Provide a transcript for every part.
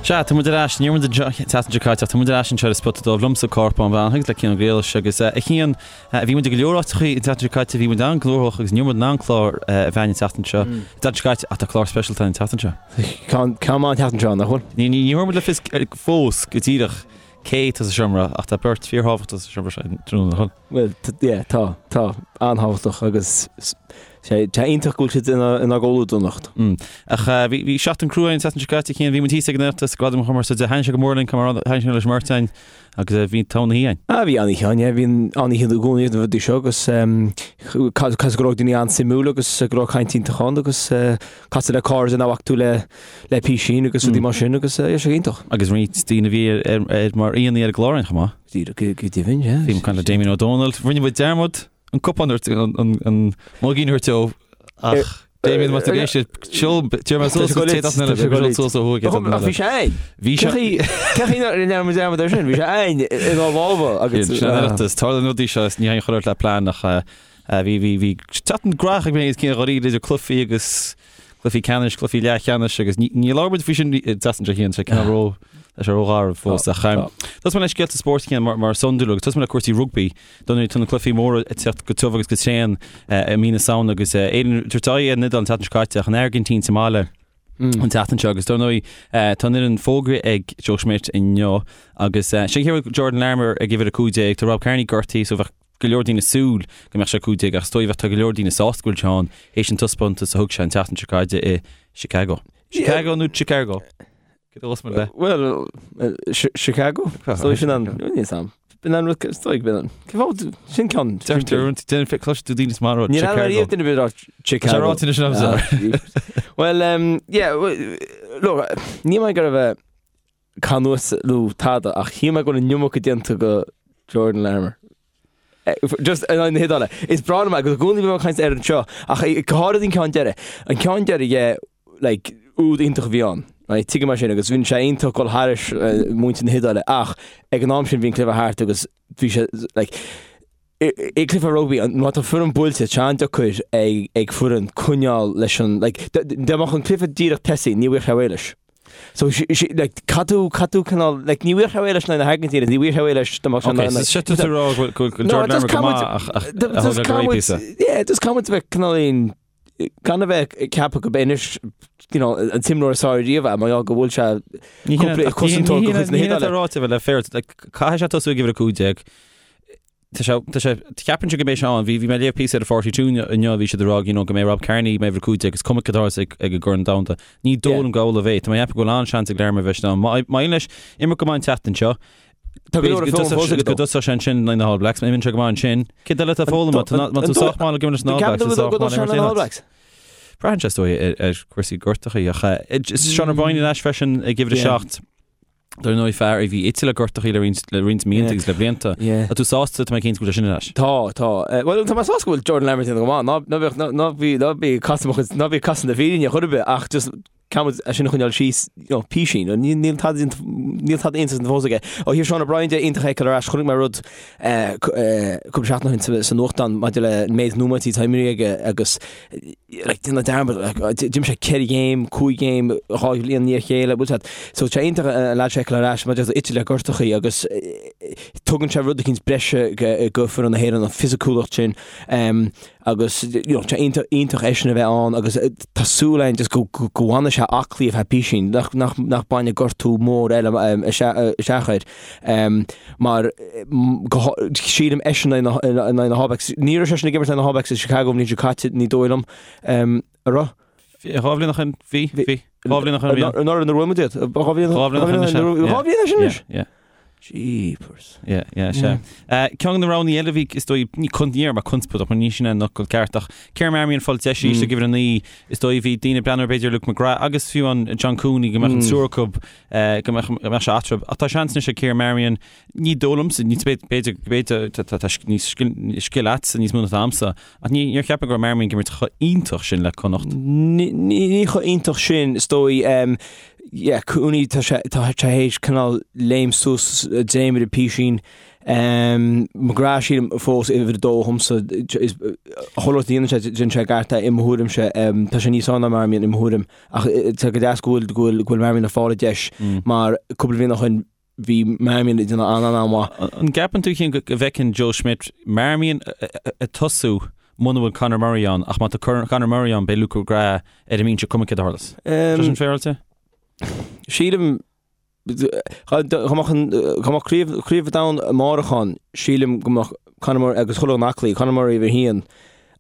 Sea, tá muid ar ais, ní raibh muid an tseachtain seo caite ach tá muid ar ais anseo ar an Spota Dubh liomsa Cárthach Bán Breathnach agus le Cian Ó Griallais agus a Chian, bhí muid i go leor áiteachaí an tseachtain seo caite, bhí muid an-ghnóthach agus ní raibh muid in ann clár a bheith againn an tseachtain seo, an tseachtain seo caite ach tá clár speisialta againn an tseachtain seo. Ceann maith an tseachtain seo, nach bhfuil? Ní thabharfaidh muid le fios fós go díreach cé atá sa seomra ach tá beirt fíorthábhachtach sa seomra seo tráthnóna, nach bhfuil? Bhuel, yeah, tá, tá, an-thábhachtach agus sé tá iontach go bhfuil siad inár gcomhluadar anocht. Ach bhí bhí seachtain crua an tseachtain seo caite, a Chian, bhí muid thíos ag an Oireachtas, Gradaim Chumarsáide, thaitnigh sé go mór linn, mar thaitnigh sé leis an mbeirt againn agus bhí togha na hoíche againn. Ah, bhí an-oíche ann, yeah, bhí an-oíche i gcónaí ag na rudaí seo agus cosúil go raibh daoine an-suimiúil agus go raibh caint iontach ann agus casadh le cairde nach bhfaca tú le le písín agus rudaí mar sin agus bhí sé iontach. Agus roinnt daoine a bhí ar mar aíonna ar an gclár againn chomh maith. Go deimhin, yeah. Bhí muid ag caint le Damien Ó Dónaill. Rinne muid dearmad an cupán a thabhairt, an muigín a thabhairt dó ach Damien má tá ag éisteacht, seol, deir mé suas go téad as an eile, seol suas ó thuaidh. Ach bhí sé ann. Bhí sé. Cé chaoi a ndearna muid dearmad air sin? Bhí sé ann inár lámha agus. Sin an Oireachtas. Tarlaíonn rudaí seo, ní haon chur ort le plean ach bhí, bhí, bhí seachtain ghnóthach ag mé agus Cian dháiríre idir cluichí agus cluichí ceannais, cluichí leathcheannais agus ní labhair muid faoi sin an tseachtain seo a Chian, sé cineál ró, tá sé rógharbh fós ach tosóidh mé le scéalta spóirt a Chian mar is iondúil agus tosóidh mé le cúrsaí rugbaí. Dar ndóigh tá na cluichí móra ag teacht go tiubh agus go tréan i mí na Samhna agus Éirinn ag tabhairt aghaidh ar an Iodáil an tseachtain seo caite ach an Airgintín sa mbaile an tseachtain seo agus dar ndóigh tá an fhoireann fógraithe ag Joe Schmidt inniu agus sin cé Jordan Larmour ag uimhir 15, tá Rob Kearney gortaithe so bheadh go leor daoine ag súil go mbeadh sé 15 ach is dóigh bheadh tá go leor daoine sásta go bhfuil sé ann théis an taispeántas a thug sé an tseachtain seo caite i Chicago. Chicago nó Chicago? Cé dó mé le? Well, Chicago? Is dóigh sin an níl sam. B'in an rud is dóigh b'in an. Cé fáth sin ceann. Deirtear déan fe cloiste tú daoine is mar rud Níl ann ariamh duine bit Chicago. Tá ráite sin agamsa. Well, um, yeah, look, ní mé go raibh canús nó tada ach shíl mé go bhfuil an iomarca déanta go Jordan Larmour. Just in aghaidh na hIodáile. Is breá liom é agus i gcónaí bím ag caint air anseo ach go háirid an ceann deiridh. An ceann deiridh yeah, like, úd iontach a bhí ann. Right, tuigim é sin agus bhí sé iontach dul thairis muintir na hIodáile ach ag an am sin bhí an cluiche thart agus bhí sé like, i gcluiche rugbaí, má tá foireann buailte, tá an-deacair ag foireann coinneáil leis an, like, dá mbeadh an cluiche díreach tosaithe, ní bhfuigheadh sé réidh leis. So, like, caithfidh tú, caithfidh tú cineál, like, ní bhfuigheadh sé réidh leis na hAirgintíne, ní bhfuigheadh sé réidh leis dá mbeadh sé Ok, so sé tú ag rá go bhfuil Jordan Larmour go maith ach a thug go réidh píosa. Yeah, just caithfidh muid a bheith cineál gan a bheith ag ceapadh go b'é anois you know, an t-imreoir is fearr riamh é, mar gheall go bhfuil sé cúpla cosantóir de chuid na hIodáile. Ní ráite a bheith le fair, caithfidh sé tosú ag uimhir 15. Tá sé, tá sé, ceapaimse go mbeidh sé ann. Bhí, bhí mé ag léamh píosa ar an 42 inniu, bhí siad ag rá, you know, go mbeidh Rob Kearney mar uimhir 15 is cuma cad a tharlós ag, ag an gCorn Domhanda. Ní dóigh liom go amhlaidh a bheidh. Tá mé ag ceapadh go bhfuil an-seans ag Larmour bheith ann. Má, má éiríonn leis imirt go maith an tseachtain seo, Tá go leor ag foghlaim fós aige go dtosóidh sé ansin in aghaidh na All Blacks, má imíonn sé go maith ansin, céard eile atá foghlamtha? Tá, má tá sách maith le go leis na All Blacks, is sách maith le imirt aon áit. Braitheann sé, is dóigh, ar, ar chúrsaí gortachaí ach, eh, Sean O'Brien ar ais freisin ag uimhir a 7. Dar ndóigh fear a bhí ite le gortachaí le roinnt, le roinnt míonna agus le blianta. Yeah. Tá tú sásta, tá mé cinnte go bhfuil sé sin ar ais. Tá, tá. Bhuel, tá mé sásta go bhfuil Jordan Larmour déanamh go maith. Ná, ná bíodh, ná, ná bí, ná bí ag casadh mo chuid, ná bí ag casadh na fírinne chor ar bith ach just caithfidh muid é sin a choinneáil síos, you know, písín. Níl, níl tada déanta, níl tada iontach déanta fós aige. Ó thaobh Sean O'Brien de, iontach é a fheiceáil ar ais. Chonaic mé rud, eh, eh, cúpla seachtain ó shin sa, sa nuachtán maidir le an méid nóiméidí atá imeartha aige agus like, déanamh dearmad, like, d'imir sé 4 ghéim, 5 ghéim, 2 bhliain i ndiaidh a chéile, bhfuil siad. So tá sé iontach an leaid seo a fheiceáil ar ais, maidir ite le gortachaí agus tugann sé rud eicínt breise go foireann na hÉireann, an fisiciúlacht sin, um, agus you know, tá iontach, iontach eisean a bheith ann agus tá súil againn just go, go, go bhfanfaidh sé aclaí ar feadh písín, nach, nach, nach bainfidh gortú mór eile um, isteach air. Um, mar go, sílim eisean in aghaidh na All Blacks. Ní raibh seisean ag imirt in aghaidh na All Blacks i Chicago an bhliain seo caite, ní dóigh liom. Um, a raibh? Dhá bhliain ó shin, bhí, bhí. Dhá bhliain ó shin bhí. Anuraidh nuair a bhuaigh muid iad. Dhá bhliain Dhá bhliain ó shin anois, yeah. Dhá bhliain ó shin anois? Yeah, yeah. Jeepers. Yeah, yeah, sea. Ceann de na roghanna eile a bhí, is dóigh, ní con, ní déarfaidh mé conspóideach, mar ní sin é an fhocal ceart, ach Ciarán Marmion ag fáil deis arís ag uimhir a 9, is dóigh, bhí daoine ag breathnú ar b'fhéidir Luke McGrath agus fiú an John Cooney go mbeadh an triúr acu go mbeadh go mbeadh sé eatarthu. Ach tá seans anois ag Ciarán Marmion, ní dóigh liomsa, ní b'fhéidir b'fhéidir tá tá tá níos scil scil agatsa níos mó ná atá agamsa, ach ní níor cheap mé go raibh Marmion ag imirt chomh iontach sin le Connacht. Ní ní chomh iontach sin, is dóigh. Yeah, Cooney tá sé tá sé théis cineál léim suas dréimire písín. McGrath sílim fós uimhir a dó dhomsa chuile rud a dhéanann sé déanann sé i gceart é i mo thuairimse. Tá sé níos fearr ná Marmion i mo thuairim ach tá go deas go bhfuil go bhfuil go bhfuil Marmion ag fáil a deis mar cúpla bliain ó shin bhí Marmion ag déanamh an-an-mhaith. An gceapann tú Cian go bhfeiceann Joe Schmidt Marmion ag tosú muna bhfuil Conor Murray ann ach má tá Conor Murray ann beidh Luke McGrath ar an mbinse cuma céard a tharlós? Tá sin féaráilte? Sílim Dá mbeadh Craobh an Domhain amárach ann, sílim go mbeadh Conor Murray agus chuile dhuine aclaí, Conor Murray uimhir a haon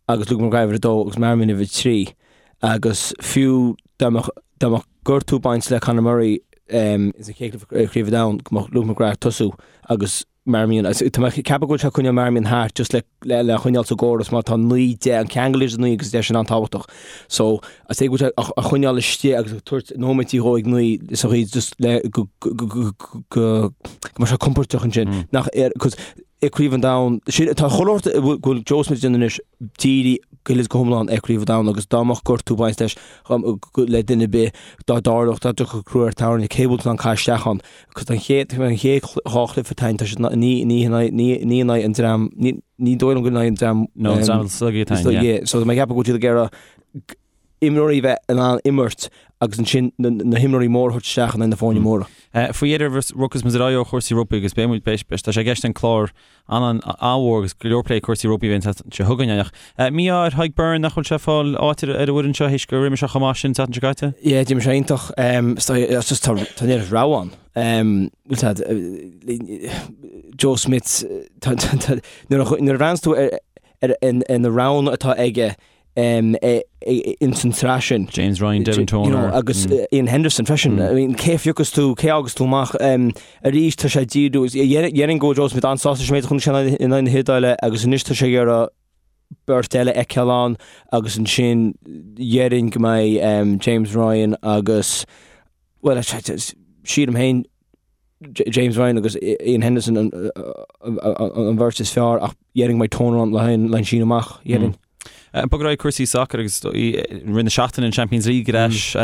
agus Luke McGrath uimhir a dó agus Marmion uimhir a trí. Agus fiú dá mbeadh dá mbeadh gortú ag baint le Conor Murray sa chéad chluiche Craobh an Domhain, go mbeadh Luke McGrath ag tosú agus Marmion, tá mé ag ceapadh go bhfuil sé ag coinneáil Marmion thart just le le choinneáil sa gcóras mar tá 9, 10, an ceangal idir 9 agus 10 sin an-tábhachtach. So, is é go bhfuil sé á choinneáil istigh agus ag tabhairt nóiméidí dhó ag 9 sa chaoi just le go go go go mbeidh sé compordach ansin. Nach ar, cos i Craobh an Domhain, sin tá chuile shórt go bhfuil Joe Schmidt ag déanamh anois dírithe go huile is go hiomlán ar Chraobh an Domhain agus dá mbeadh gortú ag baint leis le duine ar bith dá dtarlódh dá dtiocfadh crú ar tairne cé bhfuil tú in ann caitheamh isteach ann. Cos an chéad an chéad dhá chluiche atá ann tá siad ní ní ní ní in aghaidh an dream ní ní dóigh liom go in aghaidh an dream No, an dream is laige atá ann, yeah. So tá mé ag ceapadh go bhfuil siad ag iarraidh imreoirí bheith in ann imirt agus ansin na na himreoirí móra a thabhairt isteach in aghaidh na foirne móra. Faoi dheireadh rachaidh muid ar aghaidh ó chúrsaí rugbaí agus beidh muid beidh tá sé i gceist an clár an-mhór agus go leor plé cúrsaí rugbaí a bheidh an tseachtain seo chugainn ach mí-ádh ar Tadhg Beirne nach bhfuil sé ag fáil áit ar an bhfoireann seo théis gur imir sé chomh maith sin an tseachtain seo caite. Yeah, d'imir sé iontach. It's just tá tá an oiread rogha ann. Bhfuil tá Joe Schmidt tá tá tá nuair a nuair a bhreathnaíonn tú ar ar ar na roghanna atá aige ins an tsraith sin. James Ryan, Devin Toner. Agus Iain Henderson freisin. I mean, cé a phiocfas tú, cé a fhágas tú amach? Arís tá sé ag díriú, déarfainn go bhfuil Joe Schmidt an-sásta leis an méid a chonaic sé in aghaidh na hIodáile agus anois tá sé ag iarraidh beirt eile a fheiceáil ann agus ansin déarfainn go mbeidh James Ryan agus, bhuel, sílim féin, James Ryan agus Iain Henderson an bheirt is fearr ach déarfainn go mbeidh Toner ann le haghaidh an síneadh amach, déarfainn. Bog ar aghaidh cúrsaí sacair agus i rith na seachtaine an Champions League ar ais.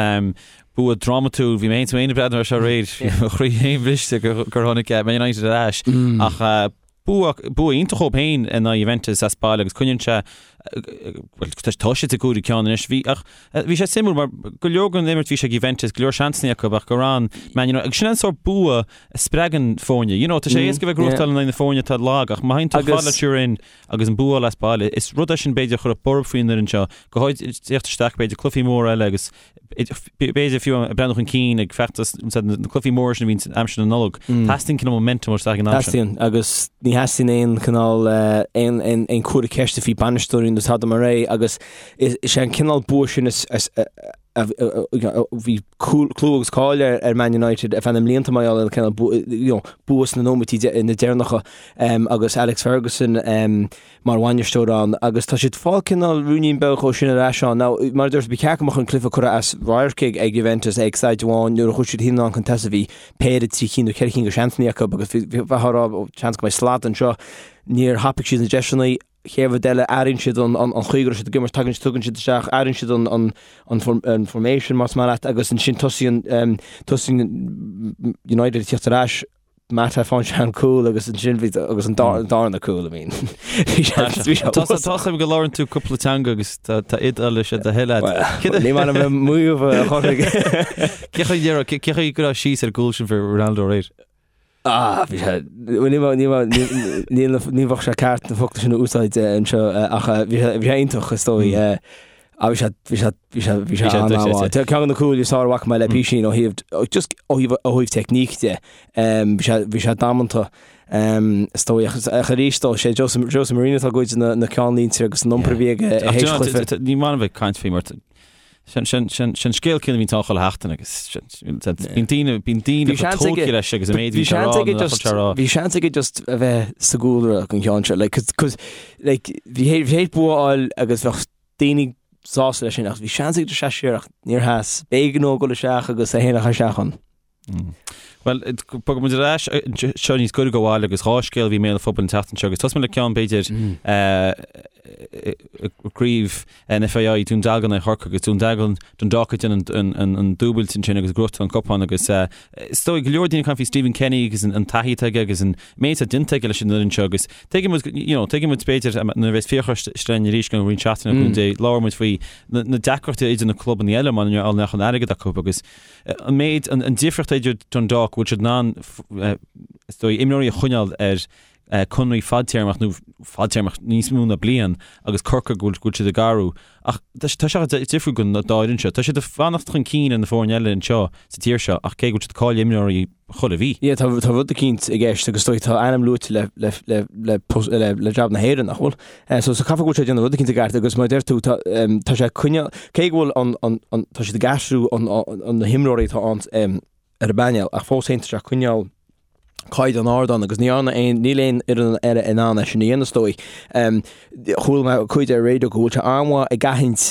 Bua drámatúil, bhí mé féin ag breathnú air seo aréir, bhí mo chroí féin briste gur tháinig Man United ar ais ach Bua, bua iontach dhóibh féin in aghaidh Juventus as baile agus coinníonn sé, bhuel, tá siad sa gcúigiú ceann anois. Bhí, ach bhí sé suimiúil mar go leor den imirt bhí sé ag Juventus, go leor seansanna acu ach gur fhan Man United, agus sin an sórt bua a spreagann foirne. You know, tá sé éasca bheith ag gnóthachtáil in aghaidh na foirne atá lag ach má théann tú chomh fada le Turin agus an bua a fháil as baile, is rud é sin b'fhéidir a chuirfeadh borb faoin fhoireann seo, go háirid ag teacht isteach b'fhéidir cluichí móra eile agus B'fhéidir fiú ag breathnú chun cinn ag feachtas na cluichí móra sin a bhíonn aimsir na Nollag. Teastaíonn cineál momentum isteach ag an am sin. Teastaíonn agus ní theastaíonn aon chineál aon aon comhartha ceiste faoi bainisteoirí nó tada mar é agus is é an cineál bua sin is a bhí clú agus cáil ar Man United ar feadh na mblianta mar gheall ar an cineál bua sna nóiméidí na deireanacha agus Alex Ferguson mar bhainisteoir ann agus tá siad ag fáil cineál ruainnín beag dhó sin ar ais ann. Now, mar a dúirt, ba cheart go mbeadh an cluiche curtha as radharc ag ag Juventus ag staid amháin nuair a chuaigh siad anonn chun tosaigh bhí péire trí cinn nó ceithre cinn de sheansanna acu agus bhí bheifeá ag rá ó seans go mbeidh slad anseo. Níor thapaigh siad na deiseanna. Chéad rud eile, athraíonn siad an an an chaoi go raibh siad ag imirt, tagann tugann siad isteach, athraíonn siad an an an an formation más maith leat agus ansin tosaíonn tosaíonn United ag tíocht ar ais Mata faigheann sé an cúl agus ansin bhí agus an darna cúl I mean. Bhí sé bhí sé Tá tá a fhios agam go labhrann tú cúpla teanga agus tá tá Iodáilis ar do thoil agat. Ní maith liom maíomh a chorraigh. Cé chaoi dhera cé chaoi go raibh síos ar an gcúl sin fir Ronaldo aréir? Ah bhí sé ní ní ní ní bheadh sé ceart na focla sin a úsáid anseo ach bhí sé bhí sé iontach is dóigh. Ah bhí sé bhí sé bhí sé bhí sé an-mhaith. Tá ceann de na cúil is fearr a bhfaca mé le písín ó thaobh just ó thaobh ó thaobh teicníc de. Bhí sé bhí sé damanta is dóigh ach ach arís dó sé Jose Jose Mourinho atá ag goid na na ceannlínte agus an iompar a bhí aige tar éis chluiche. Ní maith liom bheith ag caint faoi mar sin sin sin sin scéal céanna a bhíonn ann chuile sheachtain agus bíonn daoine bíonn daoine chomh tógtha leis agus an méid a bhí sé a rá nó nach bhfuil sé a rá. Bhí seans aige just a bheith sa gcúlra an ceann seo like cos like bhí bhí sé bua a fháil agus bheadh daoine sásta leis sin ach bhí seans aige just seasamh siar ach níor sheas. B'éigean dó dul isteach agus é féin a chur isteach ann. Bhuel, bogfaidh muid ar ais seo níos gaire do bhaile agus 2 scéal a bhí i mbéal an phobail an tseachtain seo agus tosóidh muid le ceann b'fhéidir craobh an FAI Dún Dealgan i Chorcaigh agus Dún Dealgan Dundalk ag déanamh an dúbailt ansin agus ag gnóthachtáil an cupán agus is dóigh go leor daoine ag caint faoi Stephen Kenny agus an taithí atá aige agus an méid atá déanta aige leis an fhoireann seo agus tuigeann muid you know tuigeann muid b'fhéidir nuair a bheas Fiachra linn arís i gceann roinnt seachtaine le cúnamh Dé labhróidh muid faoi na deacrachtaí idir na clubanna eile mar nach an airgead acu agus an méid, an difríocht idir Dundalk, go bhfuil siad in ann, is dóigh, imreoirí a choinneáil ar conraí fadtéarmach nó fadtéarmach níos mó ná bliain agus Corcaigh go bhfuil siad ag athrú. Ach tá sé difriúil don dá fhoireann seo. Tá siad ag fanacht chun cinn ar na foirne eile anseo sa tír seo ach cé go bhfuil siad ag cailleadh imreoirí chuile mhí. Yeah, tá tá rud eicínt i gceist agus is dóigh tá ainm luaite le le le le le le jab na hÉireann, nach bhfuil? So so caithfidh go bhfuil sé ag déanamh rud eicínt i gceart agus mar a deir tú tá tá sé ag coinneáil cé go bhfuil an an an tá siad ag aistriú an an na himreoirí atá ann ar an bpainéal ach fós féin tá sé ag coinneáil caighdeán ard ann agus ní dhearna aon níl aon fhoireann eile in ann é sin a dhéanamh is dóigh. Chuala mé cuid ar raidió go bhfuil sé an-mhaith ag aithint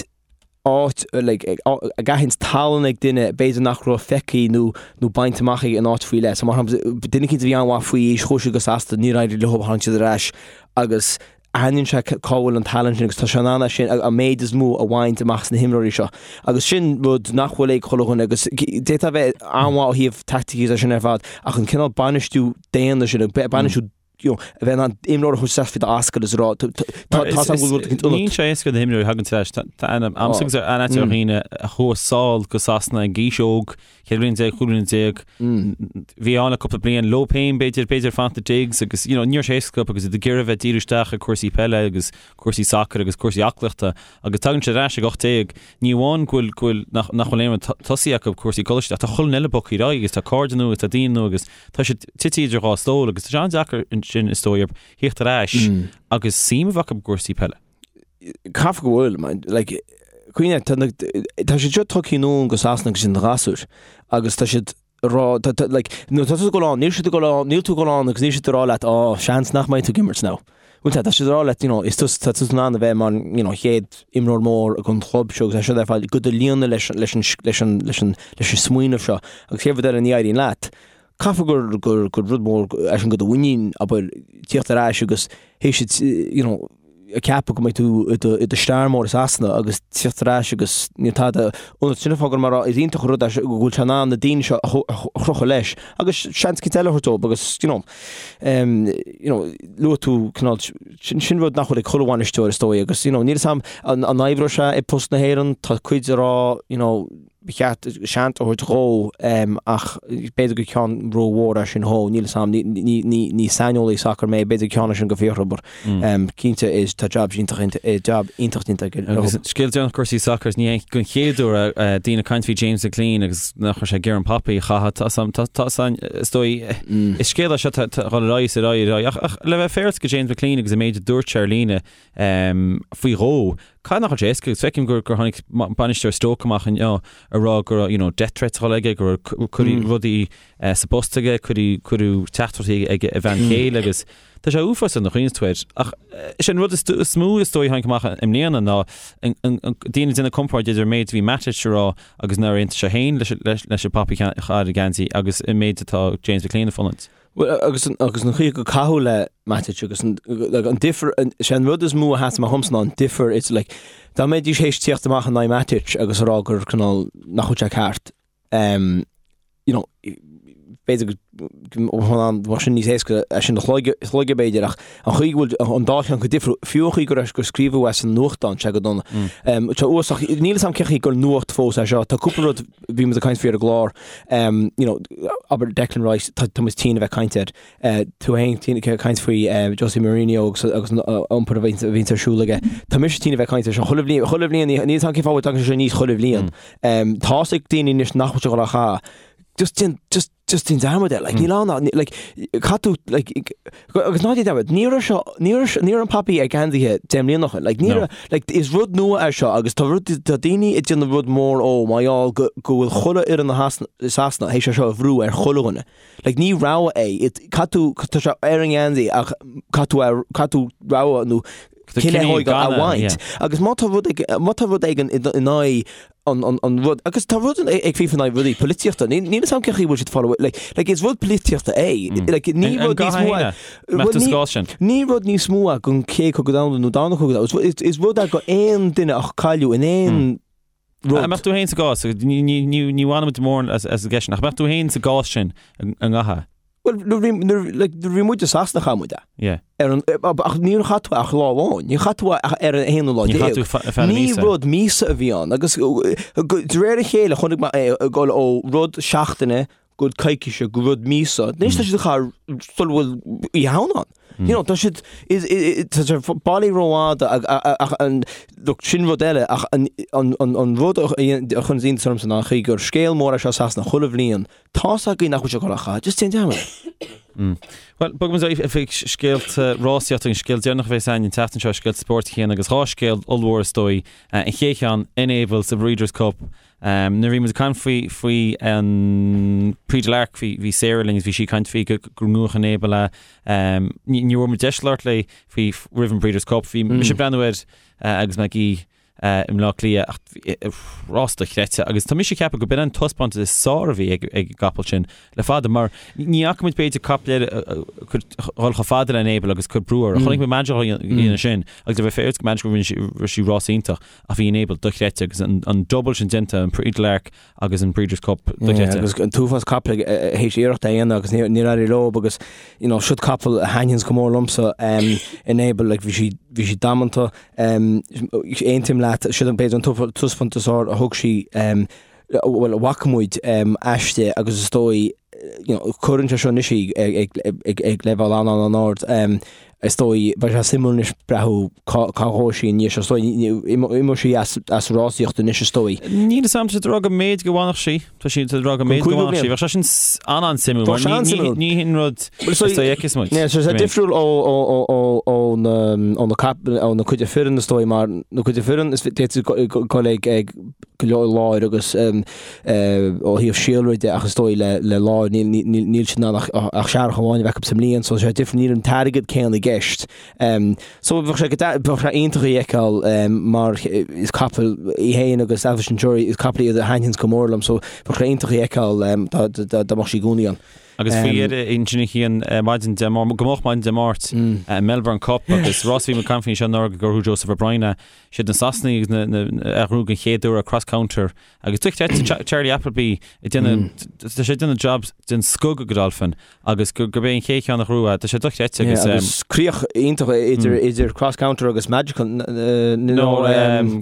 áit like ag aithint tallann ag duine b'fhéidir nach raibh feicthe nó nó bainte amach aige in áit faoi leith. So mar shampla duine eicínt a bhí an-mhaith faoi aois chuaigh siad go Sasana níor éirigh leo tháinig siad ar ais agus aithníonn sé cá bhfuil an tallann sin agus tá sé in ann é sin an méid is mó a bhaint amach as na himreoirí seo. Agus sin rud nach bhfuil ag chuile dhuine agus d'fhéadfá a bheith an-mhaith ó thaobh taicticí is é sin ar fad ach an cineál bainistiú daonna sin, bainistiú you know, a bheith in ann imreoir a thabhairt isteach faoi d'ascaill is a rá tá tá tá go bhfuil rud Níl sé éasca do imreoirí a thagann tar éis tá ainm agamsa agus aithne ar dhaoine a chuaigh sall go Sasana ag aois óg, 14 bliain, 15 bliain, bhí ann le cúpla bliain leo féin b'fhéidir, b'fhéidir fanacht i digs agus you know, ní raibh sé éasca agus iad ag iarraidh a bheith díriú isteach ar cúrsaí peile agus cúrsaí sacair agus cúrsaí aclaíochta agus tagann siad ar ais ag 18, ní amháin go bhfuil go bhfuil nach nach bhfuil aon rud tosaithe acu cúrsaí coláiste ach tá chuile dhuine eile bogtha ar aghaidh agus tá cairde nua agus tá daoine nua agus Tá siad tite idir dhá stól agus tá sé an-deacair ansin is dóigh orthu theacht ar ais agus suim a bheith acu i gcúrsaí peile. Caithfidh go bhfuil, man. Like, cuimhnigh, tá na, tá siad seo tugtha anonn go Sasana agus iad ina ghasúir agus tá siad ag rá, tá, tá, like, nuair atá tú ag dul ann, níl siad ag dul ann, níl tú ag dul ann agus níl siad ag rá leat, oh, seans nach mbeidh tú ag imirt now. Bhuel tá, tá siad ag rá leat, you know, is tú, tá tú in ann a bheith mar, you know, chéad imreoir mór ag an chlub seo agus é seo ar fad go do líonadh leis, leis an, leis an, leis an, leis an smaoineamh seo agus chéad rud eile ní éiríonn leat. Caithfidh gur, gur, gur rud mór é sin do do mhuinín, abair, tíocht ar ais agus théis it, you know, ag ceapadh go mbeidh tú i do, i do star mór i Sasana agus tíocht ar ais agus níl tada ionat. Sin an fáth go mar is iontach an rud é go bhfuil sé in ann na daoine seo a chrochadh leis agus seans eicínt eile a thabhairt dóibh agus, you know, you know, luaigh tú cineál, sin, sin rud nach bhfuil ag chuile bhainisteoir is dóigh agus, you know, níl 'fhios a'm an, an oibreoidh sé i post na hÉireann, tá cuid ag rá, you know, ba cheart seans a thabhairt dhó ach b'fhéidir gur ceann rómhór é sin dhó, níl 'fhios a'm, ní, ní, ní, ní saineolaí sacair mé, b'fhéidir gur ceann é sin go Fiachra but cinnte is tá job iontach, job iontach déanta aige. Agus scéal deireanach cúrsaí sacair, ní hé don chéad uair daoine ag caint faoi James McClean agus nach raibh sé ag iarraidh an Poppy a chaitheamh, tá 'fhios a'm, tá 'fhios a'm, is dóigh, is scéal é seo tá ag dul ar aghaidh is ar aghaidh ar aghaidh ach, ach le bheith féaráilte go James McClean agus an méid a dúirt sé ar líne faoi dhó, caithfidh nach bhfuil sé éasca agus feicim gur, gur tháinig bainisteoir Stoke amach inniu ag rá go raibh, you know, death threats á fháil aige, go raibh cuireadh rudaí sa bpost aige, cuireadh, cuireadh teachtaireachtaí ag a bhean chéile agus tá sé uafásach nuair a chuimhníonn tú air. Ach is é an rud is mó is dóigh a tháinig amach i mbliana ná daoine ag déanamh comparáid idir an méid a bhí Matic a rá agus nár aontaigh sé féin leis an Poppy a chaitheamh ar an gheansaí agus an méid atá James McClean ag fulaingt. Bhuel, agus an, agus an chaoi gur caitheadh le Matic agus an, like, an difear, an, sé an rud is mó a sheas amach dhomsa ná an difear, it's like, dá mbeidís théis tíocht amach in aghaidh Matic agus a rá gur cineál nach bhfuil sé ceart, um, you know, b'fhéidir go bheadh sin níos éasca é sin a shlogadh b'fhéidir ach an chaoi go bhfuil an dá cheann chomh difriúil, fiú an chaoi go raibh gur scríobhadh é san nuachtán sé go dona. Um, tá uasach, níl 'fhios a'm cén chaoi gur nuacht fós é seo, tá cúpla rud bhí muid ag caint faoi ar an gclár, um, you know, abair Declan Rice, tá, tá muid tinn a bheith caint air. Uh, tú féin tinn ag caint faoi uh, Jose Mourinho agus, agus an uh, iompar a bhíonn a bhíonn ar siúl aige. Tá mise tinn a bheith caint air seo chuile bhliain, chuile bhliain, níl 'fhios a'm cén fáth a dtagann sé aníos chuile bhliain. Um, tá's ag daoine anois nach bhfuil sé ag dul á chaitheamh. Just déan, just, just déan dearmad air, like, níl ann, ná, like, caithfidh tú, like, agus ná déan dearmad, ní raibh seo, ní raibh, ní raibh an Poppy ar geansaithe 10 mbliana ó shin, like, ní raibh, like, is rud nua é seo agus tá rud, tá daoine ag déanamh rud mór ó mar gheall go, go bhfuil chuile fhoireann i Sasana théis é seo a bhrú ar chuile dhuine. Like, ní rogha é, it, caithfidh tú, tá sé ar an ngeansaí ach caithfidh tú, caithfidh tú rogha nó cinneadh a thógáil a bhaint. Agus má tá rud, má tá rud éigin in aghaidh. an, an, an rud, agus tá rud ag FIFA in aghaidh rudaí polaitíochta, níl níl 'fhios a'm cén chaoi bhfuil siad fáil like, like is rud polaitíochta é, like ní An rud níos gcaithfidh mó é, héine? Mbeadh tú sa gcás sin? ní rud níos mó é gon chéad chogadh domhanda nó darna cogadh domhanda, is, is rud é go aon duine a cailleadh in aon rud. An mbeadh tú féin sa gcás, ní, ní, ní, ní bhainfimid mórán as, as an gceist sin, ach mbeadh tú féin sa gcás sin, an gcaithfeá? Bhuel, nuair bhí, nuair, like, nuair bhí muid i Sasana chaith muid é. Yeah. Ar an, ach níor chaith tú ach lá amháin, níor chaith tú ach ar an aonú lá Níor chaith déag. tú fe- feadh na Ní míosa. rud míosa a bhí ann agus de réir a chéile chonaic mé é ag dul ó rud seachtaine go coicíse go rud míosa. Anois tá siad á chaitheamh sula bhfuil Oíche Shamhna ann. You know, tá siad, is, is, tá sé bailí rófhada ach an, look, sin rud eile ach an, an, an, an rud a chuireann iontas ormsa ná an chaoi gur scéal mór é seo i Sasana chuile bhliain Tá's againn nach bhfuil sé ag dul á chaitheamh, just déan dearmad air. Bhuel, bogfaidh muid chuig scéalta rásaíochta, an scéal deireanach a bheas againn an tseachtain seo, scéalta spóirt a Chian agus dhá scéal ollmhór is dóigh. An chéad cheann, Enable sa Breeders' Cup. Nuair a bhí muid ag caint faoi faoi an Prix de l'Arc bhí bhí Sarah linn agus bhí sí ag caint faoi go go ngnóthódh Enable é. Ní ní raibh muid deis labhairt léi faoi roimh an Breeders' Cup. Bhí mise ag breathnú air agus mé ag i mBleá Cliath ach rás dochreidte agus tá mise ag ceapadh go b'in an taispeántas is fearr a bhí ag an gcapall sin le fada mar ní fhaca muid b'fhéidir capall eile dhul chomh fada le Enable agus cur brú air. Chonaic muid Madrigal a dhéanamh sin agus le bheith fair go Madrigal rinne sí rás iontach ach bhí Enable dochreidte agus an double sin déanta an Prix de l'Arc agus an Breeders' Cup dochreidte. Agus an t-uafás capall théis iarracht a dhéanamh agus níor éirigh leo agus you know siod capall a thaitníonns go mór liomsa Enable like bhí sí bhí sí damanta Aontaím leat, siod an b'fhéidir an taispeántas is fearr a thug sí, bhuel, a bhfaca muid aisti agus is dóigh, you know, cuireann sé seo anois í ag leibhéal an-an-ard. Is dóigh, beidh sé suimiúil anois breathnú cá ghabhfaidh sí i ndiaidh seo. Is dóigh, imeoidh sí as rásaíocht anois is dóigh. Níl 'fhios a'm, tá siad ag rá go mb'fhéidir go bhfanfadh sí. Tá siad ag rá go mb'fhéidir go bhfanfadh sí. Bheadh sé sin an-an-suimiúil mar ní ní hin rud is dóigh a fheicfeas muid. Tá sé difriúil ó ó na ó na cap ó na cuid fireann is dóigh mar na cuid fireann is d'fhéadfadh dul ag ag go leor láir agus ó thaobh síolra de ach is dóigh le le láir níl níl níl siad in ann ach ach searrach amháin a bheith acu sa mbliain so sé difriúil níl an t-airgead céanna i gceist. So bheadh sé bheadh sé iontach í a fheiceáil mar is capall í féin agus Alpha Centauri is capall iad a thaitníonns go mór liom so bheadh sé iontach í a fheiceáil dá dá mbeadh sí i gcónaí ann. Agus faoi dheireadh ansin a Chian maidin Dé Máirt, go moch maidin Dé Máirt, Melbourne Cup agus rás a bhí muid ag caint faoi anseo anuraidh gur ghnóthaigh Joseph O'Brien é. Siad na Sasanaigh agus na na a ghnóthaigh den chéad uair Cross Counter Agus dochreidte Charlie Appleby ag déanamh, tá sé ag déanamh jab den scoth go Godolphin agus gurb é an chéad cheann a ghnóthaigh é, tá sé dochreidte agus. Agus críoch iontach idir idir Cross Counter agus Magical nó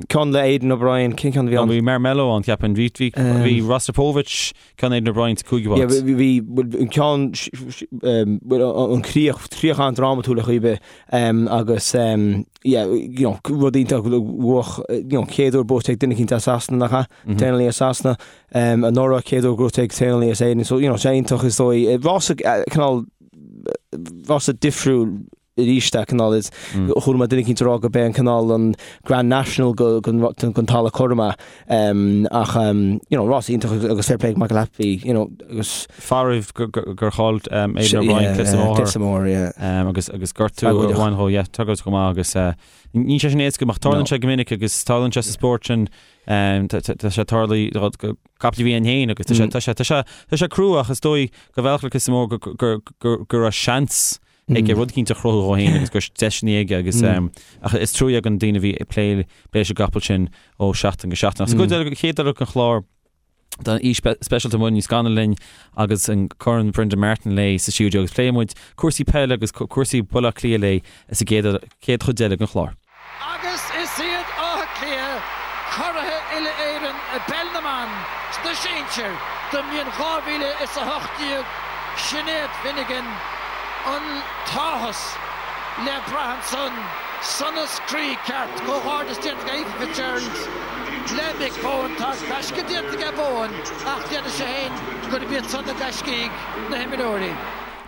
ceann le Aidan O'Brien, cén ceann a bhí ann? Bhí Marmello ann ceapaim, bhí bhí bhí Rostropovich ceann Aidan O'Brien sa cúigiú háit. Bhí bhí an ceann an chríoch críoch an-drámatúil ar chaoi ar bith agus yeah, you know, rud iontach bhuach, you know, chéad uair buaite ag duine eicínt as Sasana nach ea? Traenálaí as Sasana, um, anuraidh chéad uair gnóthaithe ag traenálaí as Éirinn, so, you know, sé iontach is dóigh, rás cineál, rás difriúil arís é cineál is, chuala mé duine eicínt ag rá go b'é an cineál an Grand National go, gon, gon talamh cothrom é, um, ach, um, you know, rás iontach agus fair play ag Michael Appleby, you know, agus. Faraor gur chaill Aidan O'Brien clios an bhóthair. Clios an bhóthair, yeah. Agus agus gortú a bhain dhó, yeah, tragóideach go maith agus níl sé sin éasca ach tarlaíonn sé go minic agus tarlaíonn sé sa spórt sin tá sé tarlaithe do chapaill a bhí ann féin agus tá sé tá sé tá sé tá sé crua ach is dóigh go bhealach le clios an bhóthair go go go go raibh seans aige rud eicínt a chruthú dhó féin agus go raibh deiseanna aige agus ach is trua ag an daoine a bhí ag plé plé leis an gcapall sin ó sheachtain go seachtain. Ach sa gcuid eile chéad eile den chlár Tá aoi speisialta Muireann Ní Scanaill linn agus an Corn Brendan Martin léi sa stiúideo agus pléifidh muid cúrsaí peile agus cúrsaí Bhaile Átha Cliath léi sa gcéad chéad chuid eile den chlár. Agus is iad Áth Cliath curaithe uile-Éireann i bPeil na mBan sna sinsir don mbliain 2018, Sinéad Finnegan, an t-áthas le brath ansan, sonas croí ceart, comhghairdeas déanta ag Aoife Fitzgerald. Le Mick Bohan, tá gaisce déanta aige Bohan ach déarfaidh sé féin gurb iad san na gaiscígh, na himreoirí.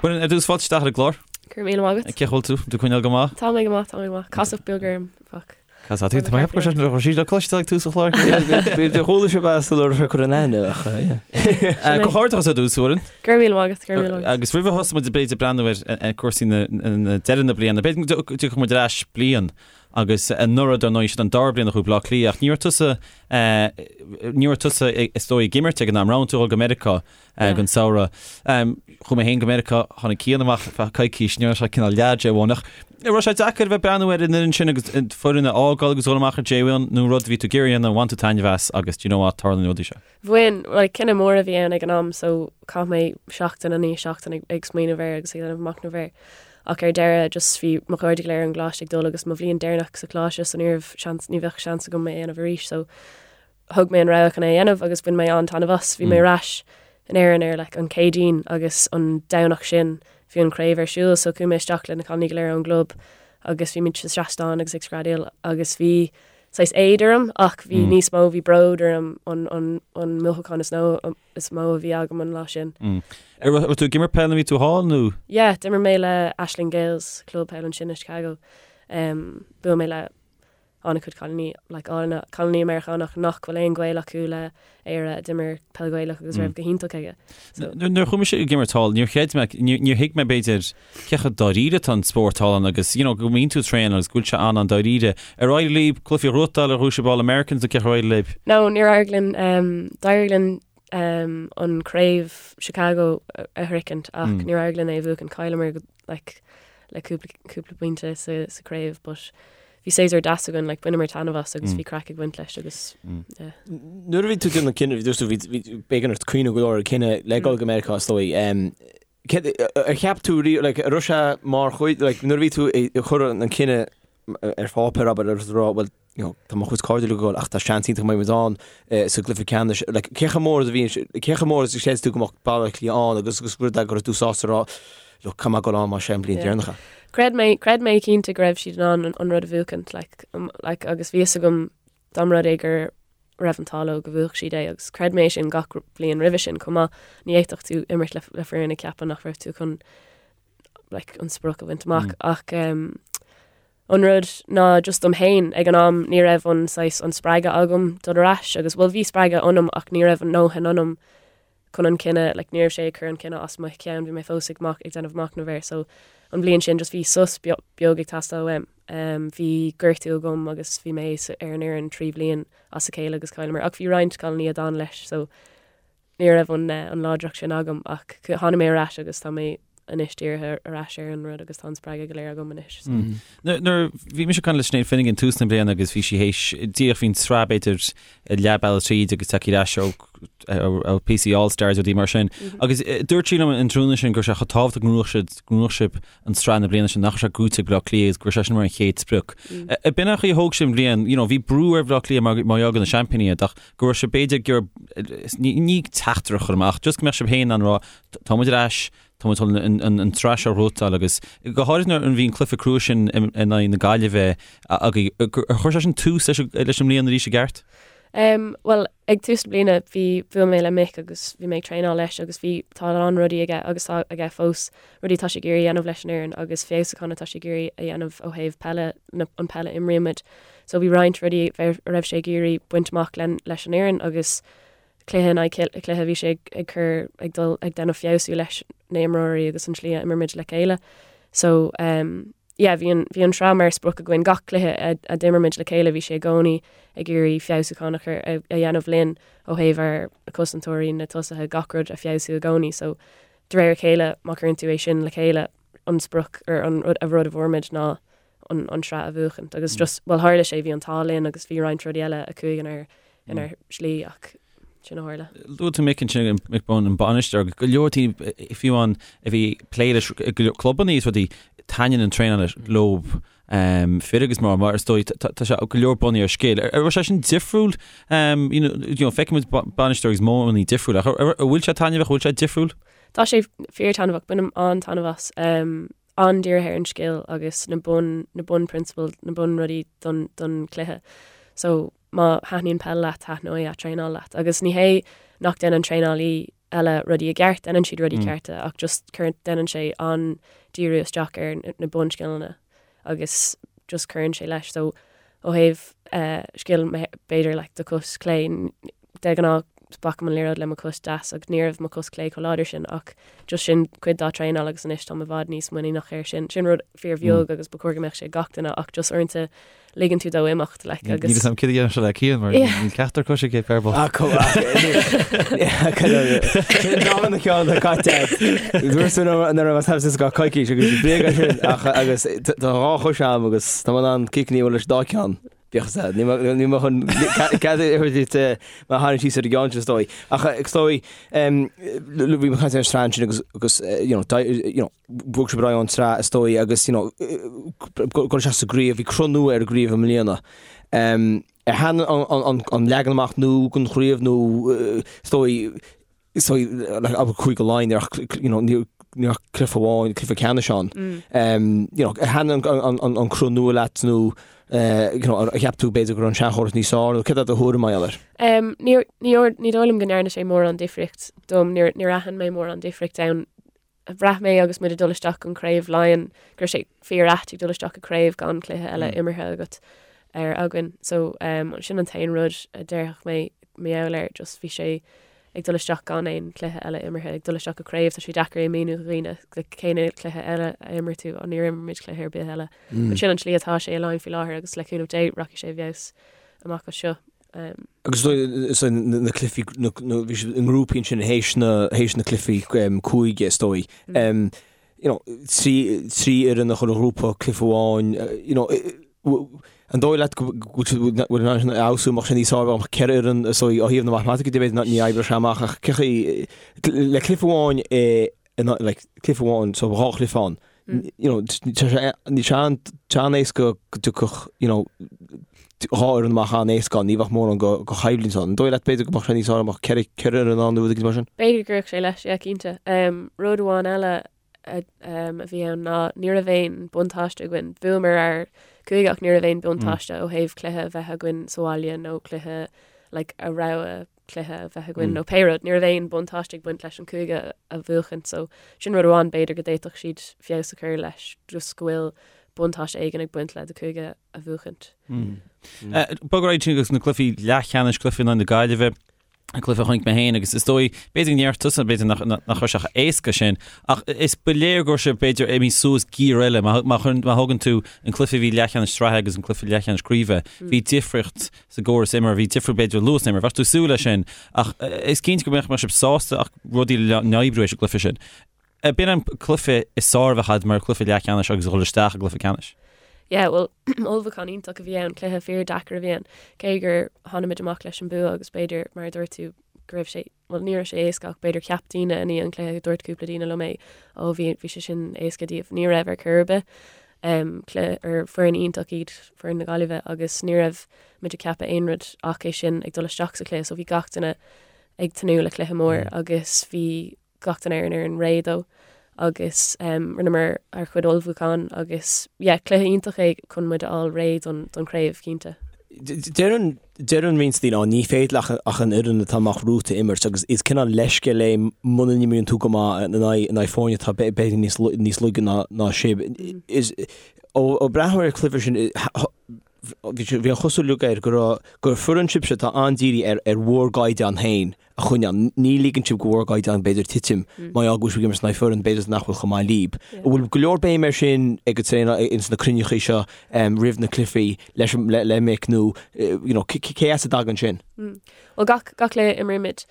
Muireann, ar dtús fáilte isteach ar an gclár. Go raibh míle maith agat. Cén chaoi a bhfuil tú? Tú ag coinneáil go maith? Tá mé go maith, tá mé go maith. Casacht beag orm, fuck. Casacht, tá mé ag ceapadh go raibh sí le cloisteáil ag tús an chláir. Bhí chuala sibh as a raibh sé cur in aithne ach yeah. Comhghairdeachas ar dtús, Muireann. Go raibh míle maith agat, go raibh míle maith agat. Agus roimh a thosóidh muid b'fhéidir ag breathnú ar cúrsaí na deireadh na bliana, b'fhéidir go dtiocfaidh muid ar ais bliain. Agus anuraidh, dar ndóigh, sin an dara bliain a chuaigh Bleá Cliath, ach ní raibh tusa, ní raibh tusa is dóigh ag imirt ag an am, roghnaigh tú dul go Meiriceá don samhradh. Chuaigh mé féin go Meiriceá, tháinig Cian amach ar feadh coicís, ní raibh sé cineál leath J1, ach an raibh sé deacair a bheith ag breathnú ar an fhoireann sin agus foireann a fhágáil agus dul amach ar J1 nó rud a bhí tú ag iarraidh a dhéanamh, bhain tú taitneamh as agus do you know what, tarlaíonn na rudaí seo. Bhain, like, cinneadh mór a bhí ann ag an am so chaith mé seachtain i ndiaidh seachtain ag, ag smaoineamh air agus ag déanamh machnamh air. Ach ar deireadh just bhí mo chairde go léir ón gcoláiste ag dul agus mo bhliain deireanach sa choláiste so ní raibh seans, ní bheadh seans agam é a dhéanamh arís so thug mé an rogha chun é a dhéanamh agus bhain mé an-taitneamh as. Bhí mé ar ais in Éirinn ar like an Céadaoin agus an Domhnach sin bhí an chraobh ar siúl so chuaigh mé isteach le na cailíní go léir ón gclub agus bhí muid sa seastán agus ag screadaíl agus bhí saghas éad orm ach bhí níos mó, bhí bród orm an, an, an mothúchán is nó, is mó a bhí agam an lá sin. Ar raibh tú ag imirt peil nuair a bhí tú thall nó? Yeah, d'imir mé le Ashland Gaels, club peile ansin i Chicago. Um, bhuail mé le an-chuid cailíní, like, álainne, cailíní Meiriceánach nach bhfuil aon ghaol acu le Éire a d'imir peil Ghaelach agus raibh go hiontach aige. So. Nuair a chuaigh mise ag imirt thall, níor chreid mé, níor thuig mé b'fhéidir cé chomh dáiríre atá an spórt thall ann agus you know go mbíonn tú ag traenáil agus go bhfuil sé an-an-dáiríre. Ar éirigh libh cluichí a ghnóthachtáil ar bhuaigh sibh All Americans nó cé chomh éirigh libh? No, níor éirigh linn. Um, d'éirigh linn um, an craobh Chicago a, a shroichint ach mm. níor éirigh linn é a bhuachan. Chailleamar like, le cúpla, cúpla pointe sa, sa craobh, but bhí séasúr deas againn, like, bhaineamar taitneamh as agus mm. bhí craic ag baint leis agus mm. yeah. Nuair a bhí tú déanamh cinneadh, bhí tú bhí b'éigean ort cuimhneamh go leor ar cinneadh le dul go Meiriceá is dóigh. Um, Ar cheap tú riamh, like, an raibh sé mar chuid, like, nuair a bhí tú ag cur an cinneadh ar pháipéar, abair, agus ag rá, bhuel, you know, tá mo chuid cairde ag dul ach tá seans iontach go mbeidh muid ann eh, sa gcluiche ceannais, like, cé chomh mór is a bhí, cé chomh mór is a chreid tú go mbeadh Baile Átha Cliath ann agus agus rud é go raibh tú sásta rá, look, caithfidh mé dul ann mar sé an bhliain deireanach é. Chreid mé, chreid mé cinnte go raibh siad in ann an rud a bhuachaint, like, um, like, agus bhí fhios agam Dá mba rud é go raibh an t-ádh leo go bhuafadh siad é agus chreid mé sin gach bliain roimhe sin chomh maith, ní fhéadfadh tú imirt le le foireann ag ceapadh nach raibh tú chun like, an sprioc a bhaint amach mm. ach um, an rud ná just dom féin ag an am ní raibh an saghas an spreagadh agam dul ar ais agus bhuel bhí spreagadh ionam ach ní raibh an ndóthain ionam chun an cinneadh, like ní raibh sé ag cur an cinneadh as mo cheann, bhí mé fós ag mach, ag déanamh machnamh air so an bhliain sin just bhí sos beag ag teastáil uaim. Um, bhí gortú agam agus bhí mé ar an fhoireann 3 bhliain as a chéile agus chailleamar ach bhí roinnt cailíní a d'fhan leis so ní raibh an, eh, an láidreacht sin agam ach tháinig mé ar ais agus tá mé anois dírithe ar ais ar an rud agus tá an spreagadh go léir agam anois. So. Mm. Nuair bhí mise ag caint le Sinéad Finnegan tús na bliana agus bhí sí théis díreach bhí an tsraith b'fhéidir leath bealaigh tríd agus tagtha ar ais ó PC All Stars rudaí mar sin. Mm-hmm. Agus eh, dúirt sí liom an tráthnóna sin go raibh sé chomh tábhachtach go ngnóthódh siad go ngnóthódh sibh an tsraith na bliana sin nach raibh sé gnóite ag Bleá Cliath agus go raibh sé sin mar an chéad sprioc. Mm. Eh, eh, b'in an chaoi a thóg sibh an bhliain, you know, bhí brú ar Bhleá Cliath mar mar gheall gur na seaimpíní iad ach go raibh sé b'fhéidir gur ní ní teachtaireacht a chur amach, just go mbeadh sibh féin in ann rá tá muid ar ais, tá muid chun an tsraith seo a ghnóthachtáil agus go háirithe nuair a bhí an cluiche crua sin in aghaidh na Gaillimhe agaibh, ar chuir sé sin tús leis an mbliain arís i gceart? Um, well, ag tús na bliana bhí bhuail mé le Mick agus bhí mé ag traenáil leis agus bhí tá a lán rudaí aige agus tá aige fós rudaí atá sé ag iarraidh a dhéanamh leis an fhoireann agus feabhsúchán atá sé ag iarraidh a dhéanamh ó thaobh peile na, an peile a imrímid. So bhí roinnt rudaí a raibh sé ag iarraidh baint amach len, leis an fhoireann agus cluiche in aghaidh cluiche bhí sé ag cur ag dul ag déanamh feabhsú leis na imreoirí agus an slí a imrímid le chéile. So um, yeah, bhí an, bhí an sraith mar sprioc againn gach cluiche a, a d'imir muid le chéile bhí sé i gcónaí ag iarraidh feabhsúchán a chur a, a dhéanamh linn ó thaobh ár cosantóirí na tosaithe gach rud a feabhsú i gcónaí. So de réir a chéile má chuireann tú é sin le chéile an sprioc ar an rud a rud a fuair muid ná an, an sraith a bhuachaint. Agus just, well tharla sé, bhí an t-ádh linn agus bhí roinnt rudaí eile a chuaigh inár, inár slí ach sin a tharla. Luaigh tú Mick ansin, Mick Bohan, an bainisteoir, agus go leor daoine fiú amháin a bhí ag plé leis i go leor clubanna is rudaí, taitníonn an traenáil leo, fir agus mná, mar is dóigh, tá sé go leor bunaithe ar scil. An raibh sé sin difriúil? You know, you know, feicimid bainisteoirí agus modhanna difriúla, ach an bhfuil sé taitneamhach, an bhfuil sé difriúil? Tá sé fíor-taitneamhach, bainim an-taitneamh as. An-dírithe ar an scil agus na bun, na bunphrionsabail, na bunrudaí don, don chluiche. So, má thaitníonn peil leat, taitneoidh a' traenáil leat. Agus ní hé nach déanann traenálaí eile rudaí i gceart, déanann siad rudaí cearta ach just cuireann, déanann sé an-díriú isteach ar na bunscileanna agus just cuireann sé leis. So, ó thaobh eh, scil, b'fhéidir like do chos clé, de ghnáth, Pacaim an liathróid le mo chos deas ach ní raibh mo chos clé chomh láidir sin ach just sin cuid dá traenáil agus anois táim i bhfad níos muiníneach air sin. Sin rud fíor bheag agus ba chóir go mbeadh sé ag gach duine ach just uaireanta ligeann tú dó imeacht like agus. Níl 'fhios a'm céard a dhéanfadh sé le Cian mar níl ceachtar cois aige ar ball. Sin dá na ceann atá caite agat. Dúirt tú nach raibh tú sásta go coicís agus bréag é sin ach agus tá dhá chois a'm agus tá mé in ann ciceanna a bhualadh leis an dá ceann. Bíodh is ea, níl mé chun cead a thabhairt duit mé a tharraingt síos ar an gceann sin is dóigh. Ach is dóigh, bhí mé ag caint ar an tsraith ansin agus, agus you know, you know, bhog sibh ar aghaidh ón tsraith is dóigh agus, you know, dul isteach sa gcraobh, bhí cruth nua ar an gcraobh i mbliana. Ar thaitin an leagan amach nua den chraobh nó is dóigh, is dóigh, like, abair Cúige Laighean, ní raibh, you know, ní ní raibh cluiche amháin, cluiche ceannais ann. Um, you know, ar thaitin an, an, an, an cruth nua leat nó, eh, you know, ar cheap tú b'fhéidir go raibh an seanchóras níos fearr nó céard é do thuairim mar gheall air? Um, ní, ní, ní dóigh liom go ndearna sé mórán difríocht dom, níor, níor aithin mé mórán difríocht ann. Bhraith mé agus muid ag dul isteach an craobh Laighean go raibh sé fíor ait ag dul isteach i craobh gan cluiche eile imeartha agat ar againn. So um, sin an t-aon rud a déarfadh mé mar gheall air, just bhí sé ag dul isteach gan aon cluiche eile imeartha, ag dul isteach go craobh, tá sé deacair é a mhíniú do dhaoine, like, cén cluiche eile a imir tú, oh, níor imir muid cluiche ar bith eile. But sin an tslí atá sé i Laighin faoi láthair agus le cúnamh Dé rachaidh sé i bhfeabhas amach as seo. Agus is dóigh na cluichí, bhí siad i ngrúpaí ansin théis na, théis na cluichí cúige is dóigh. You know, trí, trí fhoireann i chuile ghrúpa, cluiche amháin, you know, an dóigh leat go bhfuil in ann sin a fheabhsú, mbeadh sé níos fearr dá mbeadh ceithre fhoireann is dóigh ó thaobh na matamaitice de b'fhéidir ní oibreodh sé amach ach cé chaoi, le cluiche amháin i in like cluiche amháin so dhá chluiche ann you know tá sé ní sé an tá an-éasca go dtiocfadh you know dhá fhoireann amach an-éasca ann ní bheadh mórán go go choimhlint ann. An dóigh leat b'fhéidir go mbeadh sé níos fearr dá mbeadh ceithre ceithre fhoireann ann nó rud éigin mar sin? B'fhéidir go gcuirfeadh sé leis, yeah, cinnte. Um, rud amháin eile a, um, a bhí ann ná ní raibh aon buntáiste againn. Bhuamar ár cúige ach ní raibh aon buntáiste ó thaobh cluiche a bheith againn sa bhaile nó cluiche like, a rogha cluiche a bheith againn nó pé rud, ní raibh aon buntáiste ag baint leis an cúige a bhuachan so sin rud amháin b'fhéidir go d'fhéadfadh siad feabhas a chur leis just go bhfuil buntáiste éigin ag baint le do cúige a bhuachaint. Bog ar aghaidh chuig na cluichí leathcheannais, cluiche in aghaidh na Gaillimhe, an cluiche a chonaic mé féin agus is dóigh, b'fhéidir go ndéarfadh tusa, b'fhéidir nach nach raibh sé chomh éasca sin, ach is ba léir go raibh sé b'fhéidir imithe suas giar eile. Má má má thógann tú an cluiche a bhí leathcheannais sraithe agus an cluiche leathcheannais craoibhe, bhí difríocht sa gcóras imeartha, bhí difríocht b'fhéidir luas na himeartha, bheadh tú ag súil leis sin, ach is cinnte go mbeadh mbeadh sibh sásta ach rudaí le n-oibriú ag an gcluiche sin. B'in an cluiche is fearr a bheadh agat mar cluiche leathcheannais agus a dhul isteach i gcluiche ceannais. Yeah, well, ullmhúchán iontach a bhí ann, cluiche fíor deacair a bhí ann, cé gur tháinig muid amach leis an bua agus b'fhéidir, mar a dúirt tú, go raibh sé bhuel ní raibh sé éasca ach b'fhéidir cheap daoine i ndiaidh an chluiche, dúirt cúpla daoine liom é, ó bhí bhí sé sin éasca daoibh. Ní raibh ar chor ar bith. Um, cluiche ar foireann iontach iad foireann na Gaillimhe agus ní raibh muid ag ceapadh aon rud ach é sin ag dul isteach sa chluiche so bhí gach duine ag tnúth le cluiche mór agus bhí gach duine ar an fhoireann réidh dó agus um, rinneamar ár chuid ullmhúchán agus yeah, cluiche iontach é chun muid a fháil réidh don, don chraobh, cinnte. Deireann deireann roinnt daoine, "Á, ní féidir ach ach an fhoireann atá amach romhat a imirt agus is cineál leithscéal é muna n-imríonn tú go maith in aghaidh in aghaidh foirne atá b'fhéidir níos níos laige ná ná sibh. Is ó ó breathnú ar an chluiche sin bhí bhí an chosúlacht air go raibh gur foireann sibhse atá an-dírithe ar ar bhur gcaighdeán féin a choinneáil. Ní ligeann sibh do bhur gcaighdeán b'fhéidir titim mar gheall go bhfuil sibh ag imirt in aghaidh foireann b'fhéidir nach bhfuil chomh maith libh. An bhfuil go leor béim air sin ag an traenáil ins na cruinnithe seo roimh na cluichí leis le le Mick nó you know cé as a dtagann sin? Bhuel gach gach cluiche imrímid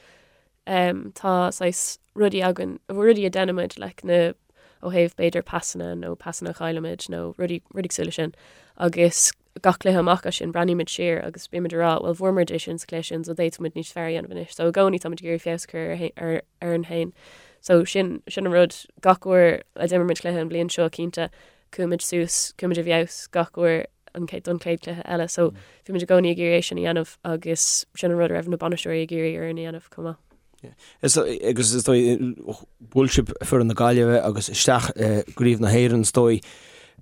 tá saghas rudaí againn, rudaí a dhéanaimid like na ó thaobh b'fhéidir pasanna nó pasanna a chaillimid nó rudaí rudaí cosúil leis sin agus gach cluiche amach as sin, breathnaímid siar agus bímid ag rá, bhuel fuair muid é sin sa chluiche sin so d'fhéadfadh muid níos fearr a dhéanamh anois. So i gcónaí táimid ag iarraidh feabhas a chur ar orainn féin. So sin, sin an rud, gach uair a d'imir muid cluiche an bhliain seo cinnte, chuaigh muid suas, chuaigh muid i bhfeabhas gach uair an chéad, don chéad chluiche eile. So bhí muid i gcónaí ag iarraidh é sin a dhéanamh agus sin an rud a raibh na bainisteoirí ag iarraidh orainn a dhéanamh chomh maith. Is agus is dóigh bhuail sibh foireann na Gaillimhe agus isteach i gCraobh na hÉireann is dóigh.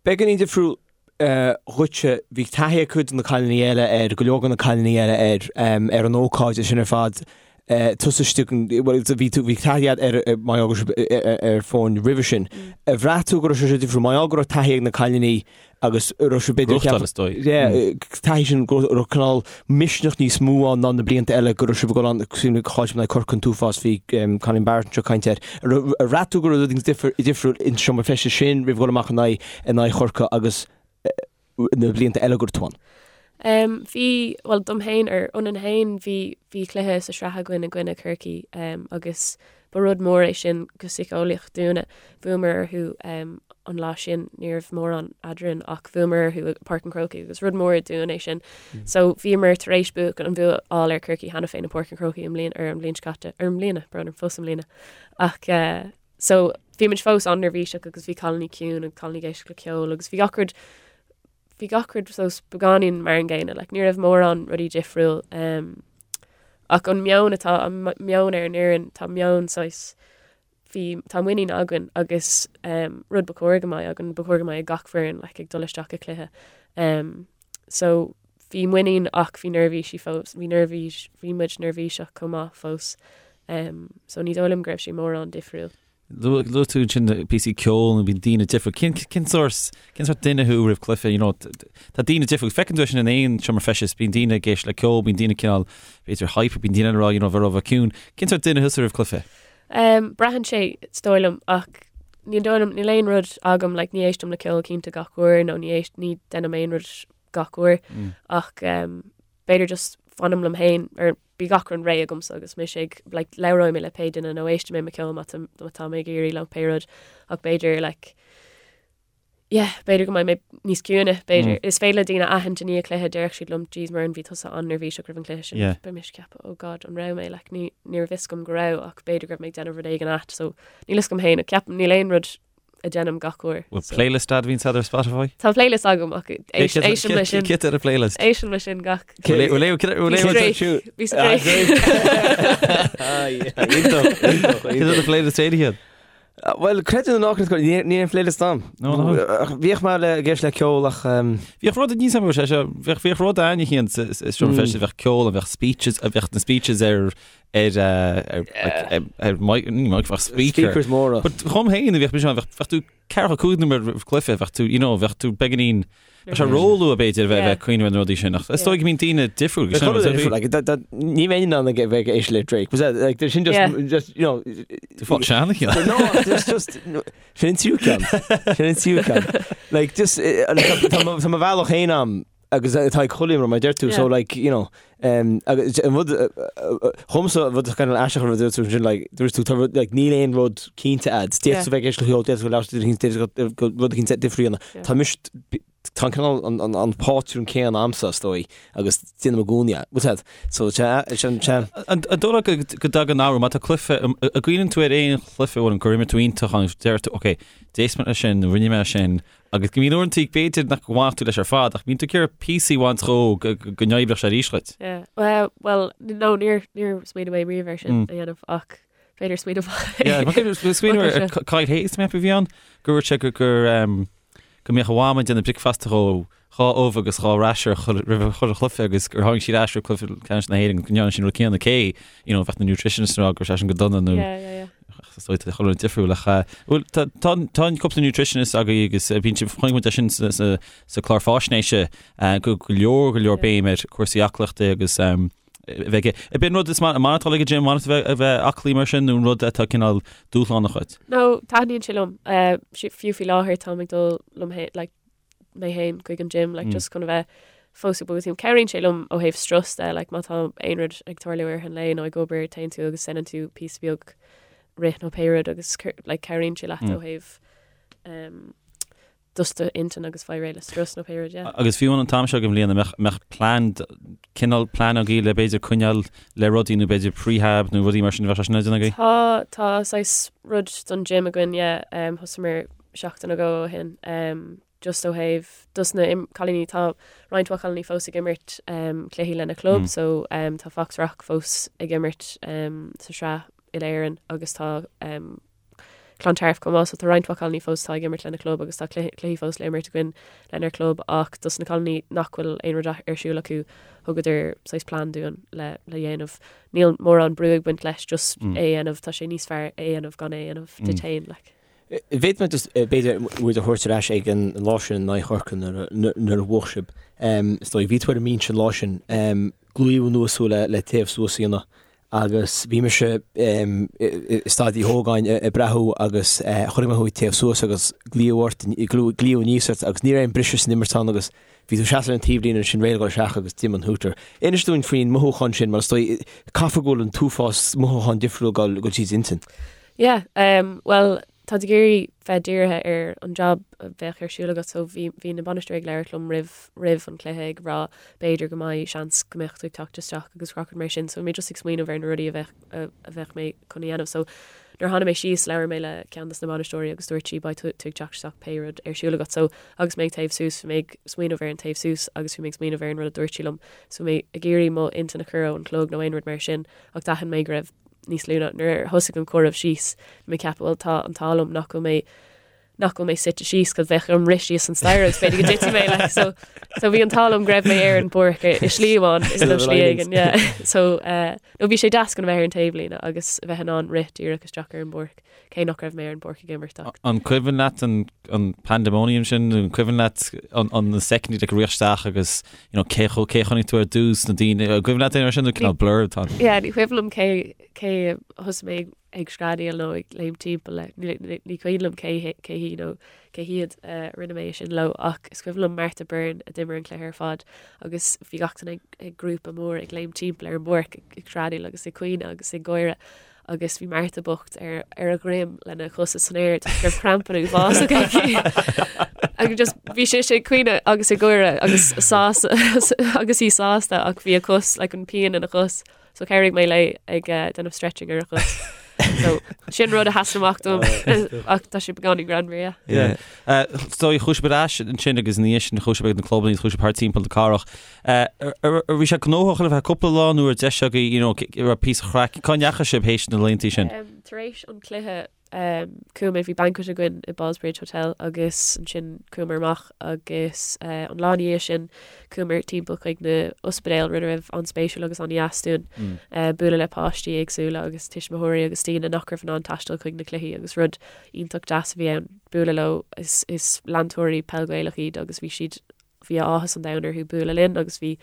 Beagáinín difriúil dhuitse, bhí taithí ag cuid de na cailíní eile air, go leor de na cailíní eile air, ar an ócáid sin ar fad. Tusa istigh, bhuel bhí tú, bhí taithí agat ar mar gheall go raibh sibh ar foirne roimhe sin. Ar bhraith tú go raibh sé difriúil mar gheall go raibh taithí ag na cailíní agus raibh sé b'fhéidir Gnóthachtáil is dóigh. Yeah, taithí sin go raibh cineál misneach níos mó ann ná na blianta eile go raibh sibh ag dul ann cosúil le chaill sibh in aghaidh Corcaigh an t-uafás bhí Colleen Barrett anseo ag caint air. Ar bhraith tú go raibh rud difriúil in seomra feistis sin roimh dhul amach in aghaidh in aghaidh Chorcaí agus na blianta eile go raibh tú ann? Um, bhí, bhuel, dom féin ar ionainn féin, bhí, bhí cluiche sa sraith againn i gcoinne Chorcaí um, agus ba rud mór é sin go síceolaíoch dúinne. Bhuamar orthu um, an lá sin, ní raibh mórán eadrainn ach bhuamar orthu i Páirc an Chrócaigh agus rud mór dúinn é sin. Mm. So bhíomar tar éis buachan an bua a fháil ar Chorcaí cheana féin i Páirc an Chrócaigh i mbliana ar an bhliain seo caite, ar i mbliana, brón orm, fós i mbliana. Ach uh, So bhí muid fós an-neirbhíseach agus bhí cailíní ciúin agus cailíní ag éisteacht le ceol agus bhí gach rud bhí gach rud saghas beagáinín mar an gcéanna, like ní raibh mórán rudaí difriúil. Um, ach an meon atá an meon ar an fhoireann tá meon saghas bhí tá muinín againn agus um, rud ba chóir go mbeadh againn ba chóir go mbeadh ag gach foireann like, ag dul isteach i cluiche. Um, so bhí muinín ach bhí neirbhísí fós, bhí neirbhís, bhí muid neirbhíseach chomh maith fós. Um, so ní dóigh liom go raibh sé mórán difriúil. Luaigh tú ansin píosaí ceoil nó bíonn daoine difriúil. Cén, cén sórt, cén sórt duine thú roimh cluiche, you know, tá daoine difriúil. Feiceann tú é sin in aon seomra feistis, bíonn daoine ag éisteacht le ceol, bíonn daoine cineál, b'fhéidir hype, bíonn daoine ag rá, you know, bheith ró ciúin. Cén sórt duine thusa roimh cluiche? Um, braitheann sé, is dóigh liom, ach ní dóigh liom, níl aon rud agam, like, ní éistim le ceol cinnte gach uair nó ní éist, ní deinim aon rud gach uair mm. ach um, b'fhéidir just fanaim liom féin ar bhí gach rud réidh agamsa agus mise ag like, labhróidh mé le pé duine nó éistfidh mé mo ceol má tá mé ag iarraidh le pé rud ach b'fhéidir like, yeah, b'fhéidir go mbeidh mé níos ciúine, b'fhéidir. Mm. Is féidir le daoine aithint i ndiaidh cluiche déarfadh siad liom, jeez Muireann bhí tusa an-neirbhíseach roimh an cluiche sin. Yeah. Beidh mise ag ceapadh, oh god, an raibh mé, like, ní, ní raibh fhios agam go raibh ach b'fhéidir go raibh mé ag déanamh rud éigin ait, so níl fhios agam féin, ach ceapaim níl aon rud a déanaim gach uair. Bhfuil so. playlist agat a bhíonn ar Spotify? Tá playlist agam ach éistim leis sin. Cad tá ar an playlist? Éistim leis sin gach. Bhí sa Cé an playlist éirithe iad? Bhuel, creid é nó ná creid, níl aon playlist agam. Bhíodh mé le ag éisteacht le ceol ach. Bhíodh rud níos sé seo, bhíodh rud ann a sa seomra feistis, bheadh ceol, bheadh speeches, bheadh na speeches ar ar ar ar mic ní mic bheadh speaker. Speakers móra. But dhom féin bheadh mise ann, bheadh bheadh tú ceathracha cúig nóiméad roimh cluiche, bheadh tú you know bheadh tú beagáinín bheadh sé róluath b'fhéidir a bheith bheith ag cuimhneamh ar na rudaí sin ach is dóigh go mbíonn daoine difriúil go sin difriúil like that that ní bheinn in ann ag bheith ag éisteacht le Drake. Was that like there's sin just Yeah. just you know Tú fáil sean a No, there's just no, sin an tríú ceann. Sin an tríú ceann. Like just eh, like, tá- tá mo tá mo bhealach féin agam agus atá ag chuile imreoir mar a deir tú, so like, you know, um, agus an rud, dhomsa an rud kind of aisteach an rud dúirt tú sin, like, dúirt tú, tá rud, like, níl aon rud cinnte a'd, d'fhéadfadh tú bheith ag éisteacht le ceol, d'fhéadfadh tú labhairt le duine éicint, d'fhéadfadh rud éicint difriúil a dhéanamh. Tá mise, tá an cineál, an, an, an pátrún céanna a'msa, is dóigh, agus déanaim i gcónaí é, what's that? So, sea, sin, sea. An dóigh leat go, go dtagann athrú, má tá cluiche, an gcuimhníonn tú ar aon chluiche amháin gur imir tú iontach ann, deir tú, ok, d'éist mé leis sin, rinne mé sin, Agus go mbíonn uaireanta b'fhéidir nach bhfanfadh tú leis ar fad ach bíonn tú ag iarraidh píosaí a bhaint dhó go n-oibreodh sé arís dhuit. Yeah. Well, well, no, níor, níor smaoinigh mé riamh ar sin a dhéanamh ach b'fhéidir smaoineamh Yeah, mar smaoineamh ar Kyle Hayes mé a bhí ann go dúirt sé gur gur go mbeadh a mham ag déanamh bricfeasta dhó dhá ubh agus dhá rasher roimh chuile chluiche agus gur tháinig siad ar ais roimh cluiche ceannais na hÉireann go ndearna siad an rud céanna cé you know, bheadh na nutritionists ag rá go raibh sé sin go dona nó Yeah, yeah, yeah. Is dóigh tá chuile rud difriúil ach bhuel tá tá tá cúpla nutritionist agaibh agus bíonn sibh chonaic muid é sin sa sa sa clár fáisnéise go go leor go leor béim ar cúrsaí aclaíochta agus a bheith ag Ab é an rud is maith atá ag an gym maith a bheith aclaí mar sin nó an rud atá cineál dúshlánach dhuit? No, taitníonn sé liom. Fiú faoi láthair táim ag dul liom féin like mé féin chuig an gym like just chun a bheith fós ag bogadh timpeall. Cabhraíonn sé liom ó thaobh strus de like má tá aon rud ag tarlú i rith an lae nó ag obair téann tú agus déanann tú píosa beag rith nó pé rud agus like cabhraíonn sé leat ó thaobh um, just d'intinn agus fáil réidh le strus nó pé rud yeah. Agus fiú an t-am seo den bhliain an mbeadh mbeadh plean cineál plean agaibh le b'fhéidir coinneáil le rudaí nó b'fhéidir prehab nó rudaí mar sin bheadh sé sin ar déanamh agaibh? Tá tá saghas rud don gym againn yeah um, thosaíomar seachtain nó dhó ó shin just ó thaobh dos na cailíní tá roinnt mhaith cailíní fós ag imirt cluichí lena club so tá Foxrock fós ag imirt sa sraith uile-Éireann agus tá. Clontarf chomh maith so tá roinnt mhaith cailíní fós atá ag imirt lena club agus tá cluichí fós le imirt againn lenár club ach dos na cailíní nach bhfuil aon rud ar siúl acu thugadar saghas plean dúinn le le dhéanamh. Níl mórán brú ag baint leis just é a dhéanamh, tá sé níos fearr é a dhéanamh gan é a dhéanamh duit féin like. Bhféadfadh mé just b'fhéidir muid a thabhairt ar ais ag an lá sin in aghaidh Chorcaí nuair a bhuaigh sibh. Is dóigh, bhí tú ar an mbinse an lá sin. Glaodh anuas thú le taobh suas a dhéanamh agus bhí mise i Staid Uí Ógáin ag breathnú agus chonaic mé thú ag téamh suas agus glaodh ort, glaodh aníos ort agus ní raibh aon briseadh san imirt ann agus bhí tú ag seasamh ar an taobhlíne ansin réidh le dhul isteach agus d'imigh an hooter. Inis dúinn faoin mothúchán sin mar is dóigh, caithfidh go bhfuil an t-uafás mothúchán difriúil ag dul tríd d'intinn. Yeah, bhuel, tá tú ag iarraidh bheith dírithe ar an job a bheadh ar siúl agat so bhí, bhí na bainisteoirí ag labhairt liom roimh, roimh an cluiche ag rá b'fhéidir go mbeidh seans go mbeadh tú ag teacht isteach agus gach rud mar sin so bhí mé just ag smaoineamh ar na rudaí a bheadh, a bheadh mé chun a dhéanamh so nuair a tháinig mé síos labhair mé le ceann dos na bainisteoirí agus dúirt sí beidh tú ag teacht isteach pé rud ar siúl agat so agus mé ag téamh suas bhí mé ag smaoineamh ar an taobh suas agus bhí mé ag smaoineamh ar an rud a dúirt sí liom so bhí mé ag iarraidh mo intinn a chur ón chlog nó aon rud mar sin ach d'aithin mé go raibh níos lú ná nuair a thosaigh an comhaireamh síos, bhí mé ag ceapadh bhuel tá an t-ádh liom nach bhfuil mé nach bhfuil mé suite síos cos bheadh orm rith síos an staighre agus b'fhéidir go dtitfidh mé like so so bhí an t-ádh liom go raibh mé ar an bpáirc i slí amháin is nó slí éigin yeah so uh, nó bhí sé deas chun a bheith ar an taobhlíne agus a bheith in ann rith díreach isteach ar an bpáirc cé nach raibh mé ar an bpáirc ag imirt ach. An cuimhin leat an an pandemonium sin, an cuimhin leat an an na soicind ag rith isteach agus you know, cé cho cé chonaic tú ar dtús na daoine, an cuimhin leat aon rud sin nó cineál blur atá ann? Yeah, ní cuimhin liom cé cé a thosaigh mé ag screadaíl nó ag léim timpeall le, ní ní ní cuimhin liom cé cé hí nó cé hiad a rinne mé sin leo ach is cuimhin liom Martha Byrne a d'imir an cluiche ar fad agus bhí gach duine ag ag grúpa mór ag léim timpeall ar an bpáirc ag ag screadaíl agus ag caoineadh agus ag gáire agus bhí Martha bocht ar ar a dhroim lena chosa san aer toisc go raibh crampanna uafásach aici. Agus just bhí sise ag caoineadh agus ag gáire agus sásta agus í sásta ach bhí a cos like an pian ina cos so chabhraigh mé léi ag eh, déanamh stretching ar a chos. So sin rud a sheasann amach dom ach tá sé beagáinín greannmhar, yeah. Yeah. Eh, so chuaigh sibh ar ais ansin agus ina dhiaidh sin chuaigh sibh ag na clubanna chuaigh sibh thart timpeall na cathrach. Bhí sé gnóthach ar feadh cúpla lá nó raibh deis agaibh, you know, raibh píosa craic, cá ndeachaigh sibh théis na laethanta sin? Tar éis an cluiche chuaigh mé, bhí banquet againn i Ballsbridge Hotel agus ansin chuamar amach agus an lá ina dhiaidh sin chuamar timpeall chuig na ospidéil, rud a raibh an-spéisiúil agus an-dheas dúinn bualadh le páistí éagsúla agus tuismitheoirí agus daoine nach raibh in ann taisteal chuig na cluichí agus rud iontach deas a bhí ann bualadh leo. Is leantóirí peil Ghaelach iad agus bhí siad bhí áthas an domhain orthu bualadh linn agus bhí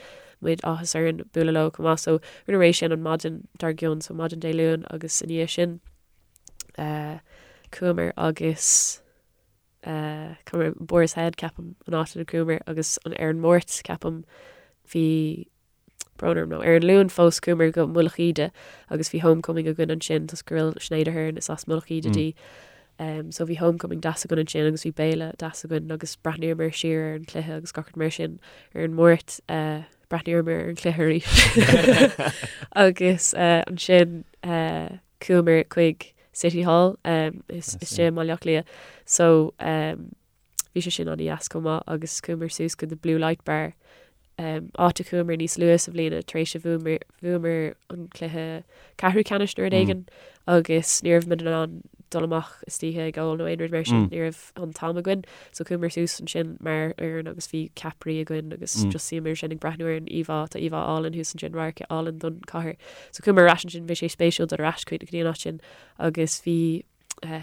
muid áthas orainn bualadh leo chomh maith. So rinneamar é sin an maidin dár gcionn, so maidin Dé Luain agus i ndiaidh sin eh, chuamar agus eh, chuamar Boar's Head ceapaim an áit ina chuamar agus an ar an Máirt ceapaim bhí brón orm nó ar an Luan fós chuamar go Mullach Íde agus bhí homecoming againn ansin toisc go bhfuil Sinéad Aherne is as Mullach Íde di. Um, so bhí homecoming deas againn ansin agus bhí béile deas againn agus breathnaíomar siar ar an cluiche agus gach rud mar sin ar an Máirt uh, breathnaíomar ar an cluiche arís. agus uh, ansin uh, chuamar chuig City Hall um, is, is sé Baile Átha Cliath. So um, Bhí sé sin an-dheas chomh maith agus chuamar suas go The Blue Light Bar, áit a chuamar níos luaithe sa bhliain tar éis a bhuamar an cluiche ceathrú ceannais nó rud éigin agus ní raibh muid in ann dul amach istoíche ag ól nó aon rud mar sin, ní raibh an t-am againn. So chuamar suas ansin mar fhoireann agus bhí ceapairí againn agus just shuíomar ansin ag breathnú ar an íomhá, tá íomhá álainn thuas ansin, radharc álainn don chathair. So chuamar ar ais ansin, bhí sé spéisiúil dul ar ais go dtí an áit sin agus bhí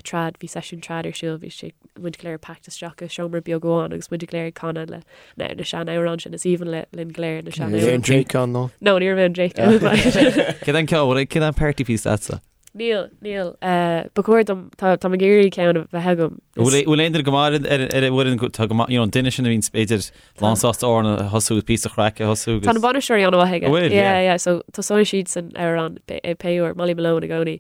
trad, bhí seisiún trad ar siúl, bhí sé, muid go léir packed isteach i seomra beag amháin agus muid go léir ag canadh le na, na sean-amhráin sin, is aoibhinn le, linn go léir na sean-amhráin. Bhí an Drake ann nó? No, ní raibh aon Drake ann. Céard an ceol, céard an party piece leatsa? Níl, níl. Ba chóir dom, tá, tá mé ag iarraidh ceann a bheith agam. Bhfuil aon duine go maith ar ar an bhfoireann, tá go maith, you know, an duine sin a bhíonn b'fhéidir lán sásta amhrán a thosú agus píosa craic a thosú agus. Tá na bainisteoirí an-mhaith aige. Bhfuil, yeah. Yeah, yeah, so tosóidh siad san amhrán pé uair, Molly Malone i gcónaí.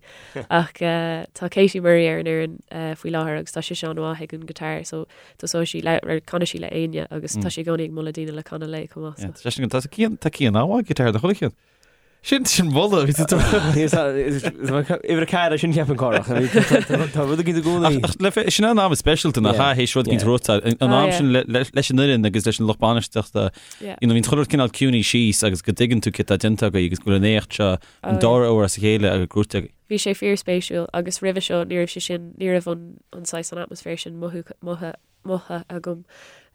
Ach tá Katie Murray ar an fhoireann faoi láthair agus tá sise an-mhaith ag an guitar so tosóidh sí le, canfaidh sí le éinne agus tá sí i gcónaí ag moladh daoine le canadh léi chomh maith. Yeah, tá Cian, tá Cian an-mhaith ag guitar, do chuile cheann. Sin sin moladh bhí tú Uimhir 4 sin ceapaim Cárthach. Tá rud éigin i gcónaí. Ach le fe- sin an am is speisialta nach ea théis rud éigin rota an Ah, am yeah. sin le- le- leis an fhoireann agus leis an lucht bainistíochta Yeah. you know, bhíonn chuile rud cineál ciúnaithe síos agus go dtuigeann tú céard atá déanta agaibh agus go bhfuil an éacht seo an Oh, dara huair as a chéile agus gnóthaithe agaibh. Bhí sé fíorspéisiúil agus roimhe seo ní raibh sé sin, ní raibh an an saghas an atmaisféar sin mothu motha mothaithe agam.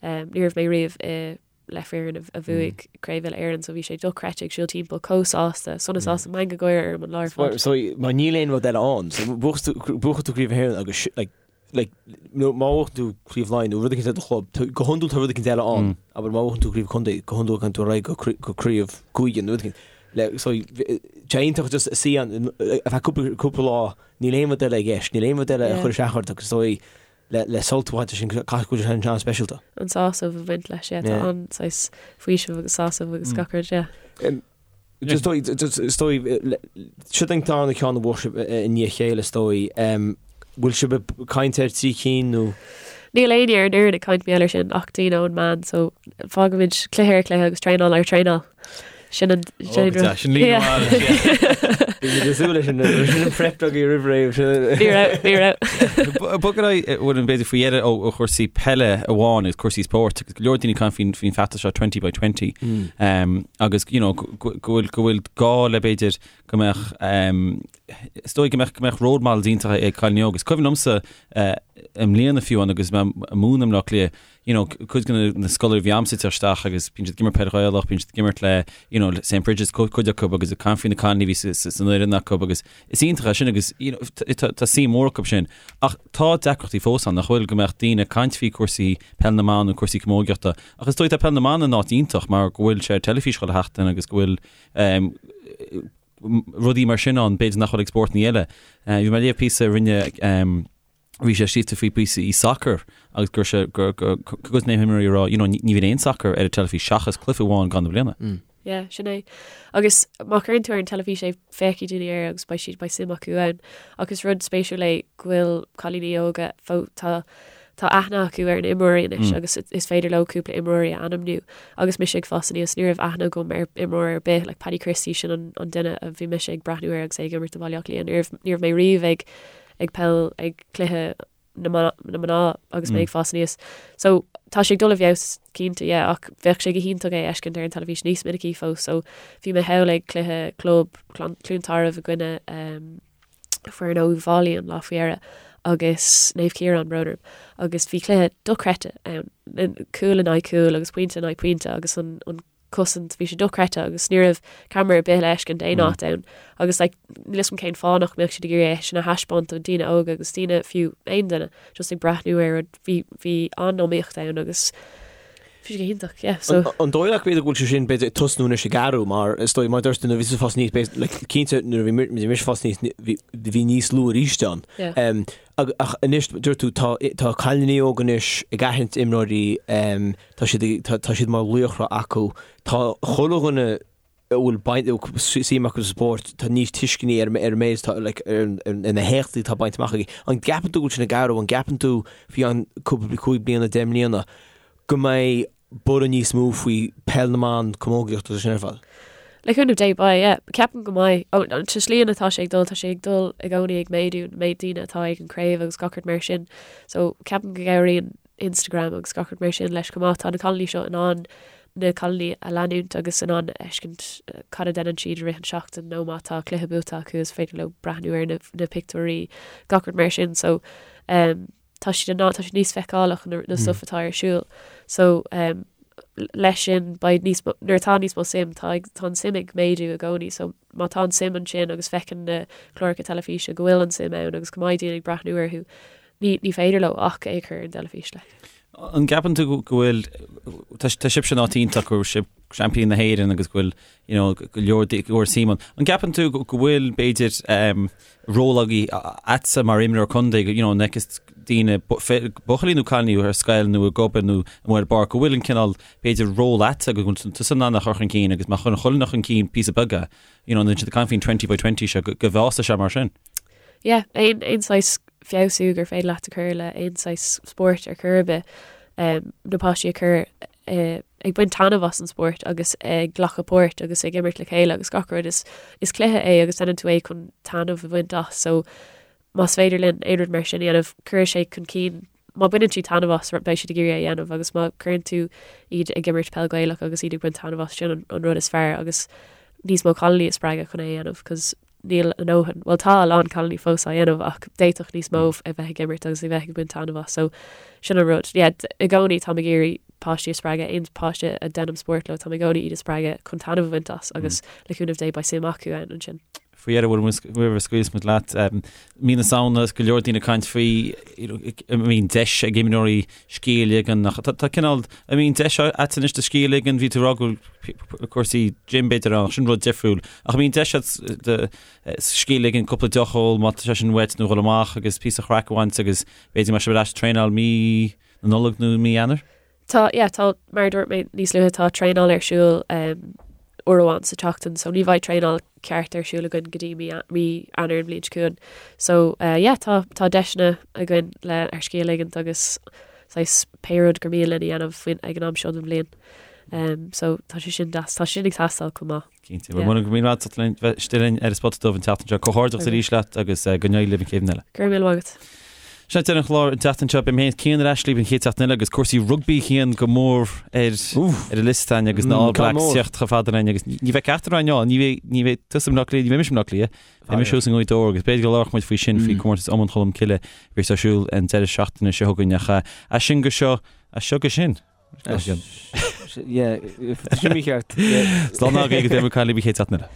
Um, ní raibh mé riamh i le foireann a bhuaigh Craobh Uile-Éireann so bhí sé dochreidte ag siúl timpeall chomh sásta, sona sásta, meangadh gáire orm an lá ar fad. So mar níl aon rud eile ann. So buachann tú Craobh na hÉireann agus like like nó má bhuachann tú Craobh Laighean nó rud éicint le do chlub, go hiondúil tá rud éicint eile ann. Abair má bhuachann tú Craobh Contae, go hiondúil gabhann tú ar aghaidh go go Craobh Cúige nó rud éicint. Le so tá sé iontach just suí ann ar feadh cúpla cúpla lá, níl aon rud eile i gceist, níl aon rud eile a chuir isteach ort agus so le sult a bhaint as sin, caithfidh go bhfuil sé an-speisialta. An sásamh a bhaint leis, yeah, tá an saghas faoiseamh agus sásamh agus gach rud, yeah. Is dóigh, is dóigh, seo an darna ceann a bhuaigh sibh i ndiaidh a chéile, is dóigh. Bhfuil sibh ag caint ar thrí cinn nó? Níl éinne ar an fhoireann ag caint mar gheall air sin ach daoine ón meán, so fágaimid cluiche ar chluiche agus traenáil ar thraenáil. Sin an Ó, go deas, sin líne mhaith leis, yeah. Bhí muid ag súil leis sin, sin an prep agaibh roimh ré. Ní raibh, ní raibh. Bog ar aghaidh, bhfuil an b'fhéidir faoi dheireadh ó chúrsaí peile amháin agus cúrsaí spóirt agus go leor daoine ag caint faoin faoin feachtas seo 20 by 20 agus you know go bhfuil go bhfuil gá le b'fhéidir go mbeadh is dóigh go mbeadh go mbeadh role models iontacha ag cailíní óga. Is cuimhin liomsa i mbliana fiú amháin agus mé ag múineadh i mBleá Cliath you know, cuid de na scoláirí a bhí a'msa ag teacht isteach agus bíonn siad ag imirt peil Ghaelach, bíonn siad ag imirt le, you know, St Brigid's cuid acu agus ag caint faoi na cailíní a bhí san fhoireann acu agus is iontach é sin agus, you know, tá tá suim mór acu sin. Ach tá deacrachtaí fós ann, nach bhfuil, go mbeadh daoine ag caint faoi cúrsaí peil na mban nó cúrsaí camógaíochta ach is dóigh tá peil na mban in áit iontach mar go bhfuil sé ar teilifís chuile sheachtain agus go bhfuil um, rudaí mar sin ann, b'fhéidir nach bhfuil ag spórtanna eile. Uh, bhí mé ag léamh píosa a rinne um, bhí sé scríte faoi píosa i sacar agus gur sé gur gur gur na himreoirí ag rá you know ní bhíonn aon sacar ar an teilifís seachas cluiche amháin i gcaitheamh na bliana. Mm. Yeah, sin é. Agus má chuireann tú ar an teilifís é féachfaidh daoine air agus beidh siad beidh suim acu ann. Ach is rud spéisiúil é go bhfuil cailíní óga fó tá tá aithne acu ar na imreoirí anois mm. agus is féidir leo cúpla imreoirí a ainmniú. Agus mise ag fás aníos ní raibh aithne agam ar imreoir ar bith, like Paddy Christie sin an, an duine a bhí mise ag breathnú air agus é ag imirt do Bhaile Átha Cliath. Ní raibh ní raibh mé riamh ag ag peil ag cluiche na mná agus mé ag fás aníos. So tá sé ag dul i bhfeabhas cinnte, yeah, ach bheadh sé go hiontach é a fheiscint ar an teilifís níos minicí fós. So bhí mé thall ag cluiche club Cluain Tarbh i gcoinne um, foireann ó Uíbh Fhailí an lá faoi dheireadh agus Naomh Ciarán brón orm agus bhí cluiche dochreidte ann, cúl in aghaidh cúil agus pointe in aghaidh pointe agus an, an cosaint, bhí sé dochreidte agus ní raibh ceamara ar bith le fheiscint aon áit ann agus like níl 'fhios a'm cén fáth nach mbeadh siad ag iarraidh é sin a thaispeáint do daoine óga agus daoine fiú aon duine just ag breathnú ar rud bhí bhí an-iomaíocht ann agus bhí sé go hiontach yeah so. An dóigh leat b'fhéidir go bhfuil sé sin b'fhéidir ag tosnú anois ag athrú mar is dóigh mar dúirt tú nuair a bhí tú ag fás aníos b'fhéidir like cinnte nuair a bhí mise ag fás aníos bhí bhí níos lú arís ann. Yeah. Um, Ach anois, dúirt tú, tá tá cailíní óga anois ag aithint imreoirí, tá siad tá siad mar laochra acu. Tá chuile dhuine a bhfuil baint suim acu sa spórt, tá níos tuisceanaí ar ar an méid atá like ar ar na héachtaí atá bainte amach aige. An gceapann tú go bhfuil sin ag athrú? An gceapann tú faoi cheann cúpla 5 bliana, 10 mbliana go mbeidh borradh níos mó faoi peil na mban, camógaíocht agus sin ar fad. Le cúnamh Dé, beidh, yeah. Ceapaim go mbeidh. Ó, an tslí atá sé ag dul, tá sé ag dul i gcónaí ag méadú, an méid daoine atá ag an craobh agus gach rud mar sin. So, ceapaim go gcabhraíonn Instagram agus gach rud mar sin leis chomh maith. Tá na cailíní seo in ann na cailíní a leanúint agus in ann a fheiscint cad a deineann siad i rith an seachtain nó má tá cluiche buaite acu is féidir leo breathnú ar na, na pictiúirí, gach rud mar sin. So, um, tá siad in ann, tá siad níos feiceálach na, na stuff atá ar siúl. So um, leis sin beidh níos mó, nuair atá níos mó suim, tá, ag, tá an suim ag méadú i gcónaí, so má tá an suim ansin agus feiceann na cláracha teilifíse go bhfuil an suim ann agus go mbeidh daoine ag breathnú orthu, ní, ní féidir leo ach é a chur ar an dteilifís like. An gceapann tú go bhfuil, tá, tá sibhse in áit iontach go bhfuil sibh seaimpíní na hÉireann agus go bhfuil you know, go leor go leor suim ann. An gceapann tú go bhfuil b'fhéidir um, ról agaí agatsa mar imreoir contae, you know, an bhfeiceas daoine buachaillí nó cailíní ar scoil nó ag obair nó amuigh ar an bpáirc, go bhfuil an cineál b'fhéidir ról agatsa go bhfuil tusa in ann a chur chun cinn agus má chuireann chuile dhuine chun cinn píosa beag é, you know, nuair atá siad ag caint faoin 20 by 20 seo go go bhfásfaidh sé mar sin. Yeah, aon aon saghas feabhsú gur féidir leat a chur le aon saghas spóirt ar chor ar bith, um, na páistí a chur ag baint taitneamh as an spórt agus ag glacadh páirt agus ag imirt le chéile agus gach rud. Is is cluiche é agus déanann tú é chun taitneamh a bhaint as so más féidir linn aon rud mar sin a dhéanamh cuirfidh sé chun cinn má bhaineann siad taitneamh as beidh siad ag iarraidh é a dhéanamh agus má cuireann tú iad ag imirt peil Gaelach agus iad ag baint taitneamh as sin an an rud is fearr agus níos mó cailíní a spreagadh chun é a dhéanamh cos níl a ndóthain, bhuel tá a lán cailíní fós á dhéanamh ach d'fhéadfadh níos mó a bheith ag imirt agus a bheith ag baint taitneamh as so sin an rud. Yeah, i gcónaí táim ag iarraidh páistí a spreagadh, aon páiste a deinim spórt leo táim i gcónaí iad a spreagadh chun taitneamh a bhaint as agus le cúnamh Dé beidh suim acu ann ansin. Faoi dheireadh roimh a scaoilfeas muid leat, mí na Samhna is go leor daoine ag caint faoi an mbíonn deis ag imreoirí scíth a ligean ach tá cineál, an mbíonn deis agat anois do scíth a ligean, bhí tú ag rá go bhfuil cúrsaí gym b'fhéidir ann ach sin rud difriúil. Ach an mbíonn deis agat do scíth a ligean, cúpla deoch a ól má tá sé sin uait nó dhul amach agus píosa chraic a bhaint agus b'fhéidir mar sin ar ais ag traenáil mí na Nollag nó mí Eanáir? Tá, yeah, tá, mar a dúirt mé níos luaithe, tá traenáil ar siúl um, uair amháin sa tseachtain, so ní bheidh traenáil ceart ar siúl againn go dtí mí, mí Eanáir an bhliain seo chugainn. So, uh, yeah, tá, tá deiseanna againn le ár scíth a ligint agus saghas pé rud gur mian linn a dhéanamh faoin ag an am seo den bhliain. Um, so tá sé sin deas, tá sé sin ag teastáil chomh maith. Cinnte. Bhuel, go raibh míle maith agat as bheith istigh linn ar an Spota Dubh an tseachtain seo. Comhghairdeachas arís leat agus go n-éirí libh an chéad bhliain eile. Go raibh míle maith agat. Sin deireadh an chláir an tseachtain seo. Beidh mé féin is Cian ar ais libh an chéad seachtain eile agus cúrsaí rugbaí Cian go mór ar ar an liosta againn agus na All Blacks teacht chomh fada linn agus ní bheidh ceachtar againn ann, ní bheidh ní bheidh tusa i mBleá Cliath, ní bheidh mise i mBleá Cliath, beidh mise thuas i nGaoth Dobhair agus b'fhéidir go labharfadh muid faoi sin faoi comórtas Iomáint Cholm Cille a bheas ar siúl an deireadh seachtaine seo chugainn ach as sin go seo, as seo go sin. Yeah, sin mícheart. Slán agaibh agus beidh muid ag caint libh an chéad seachtain eile.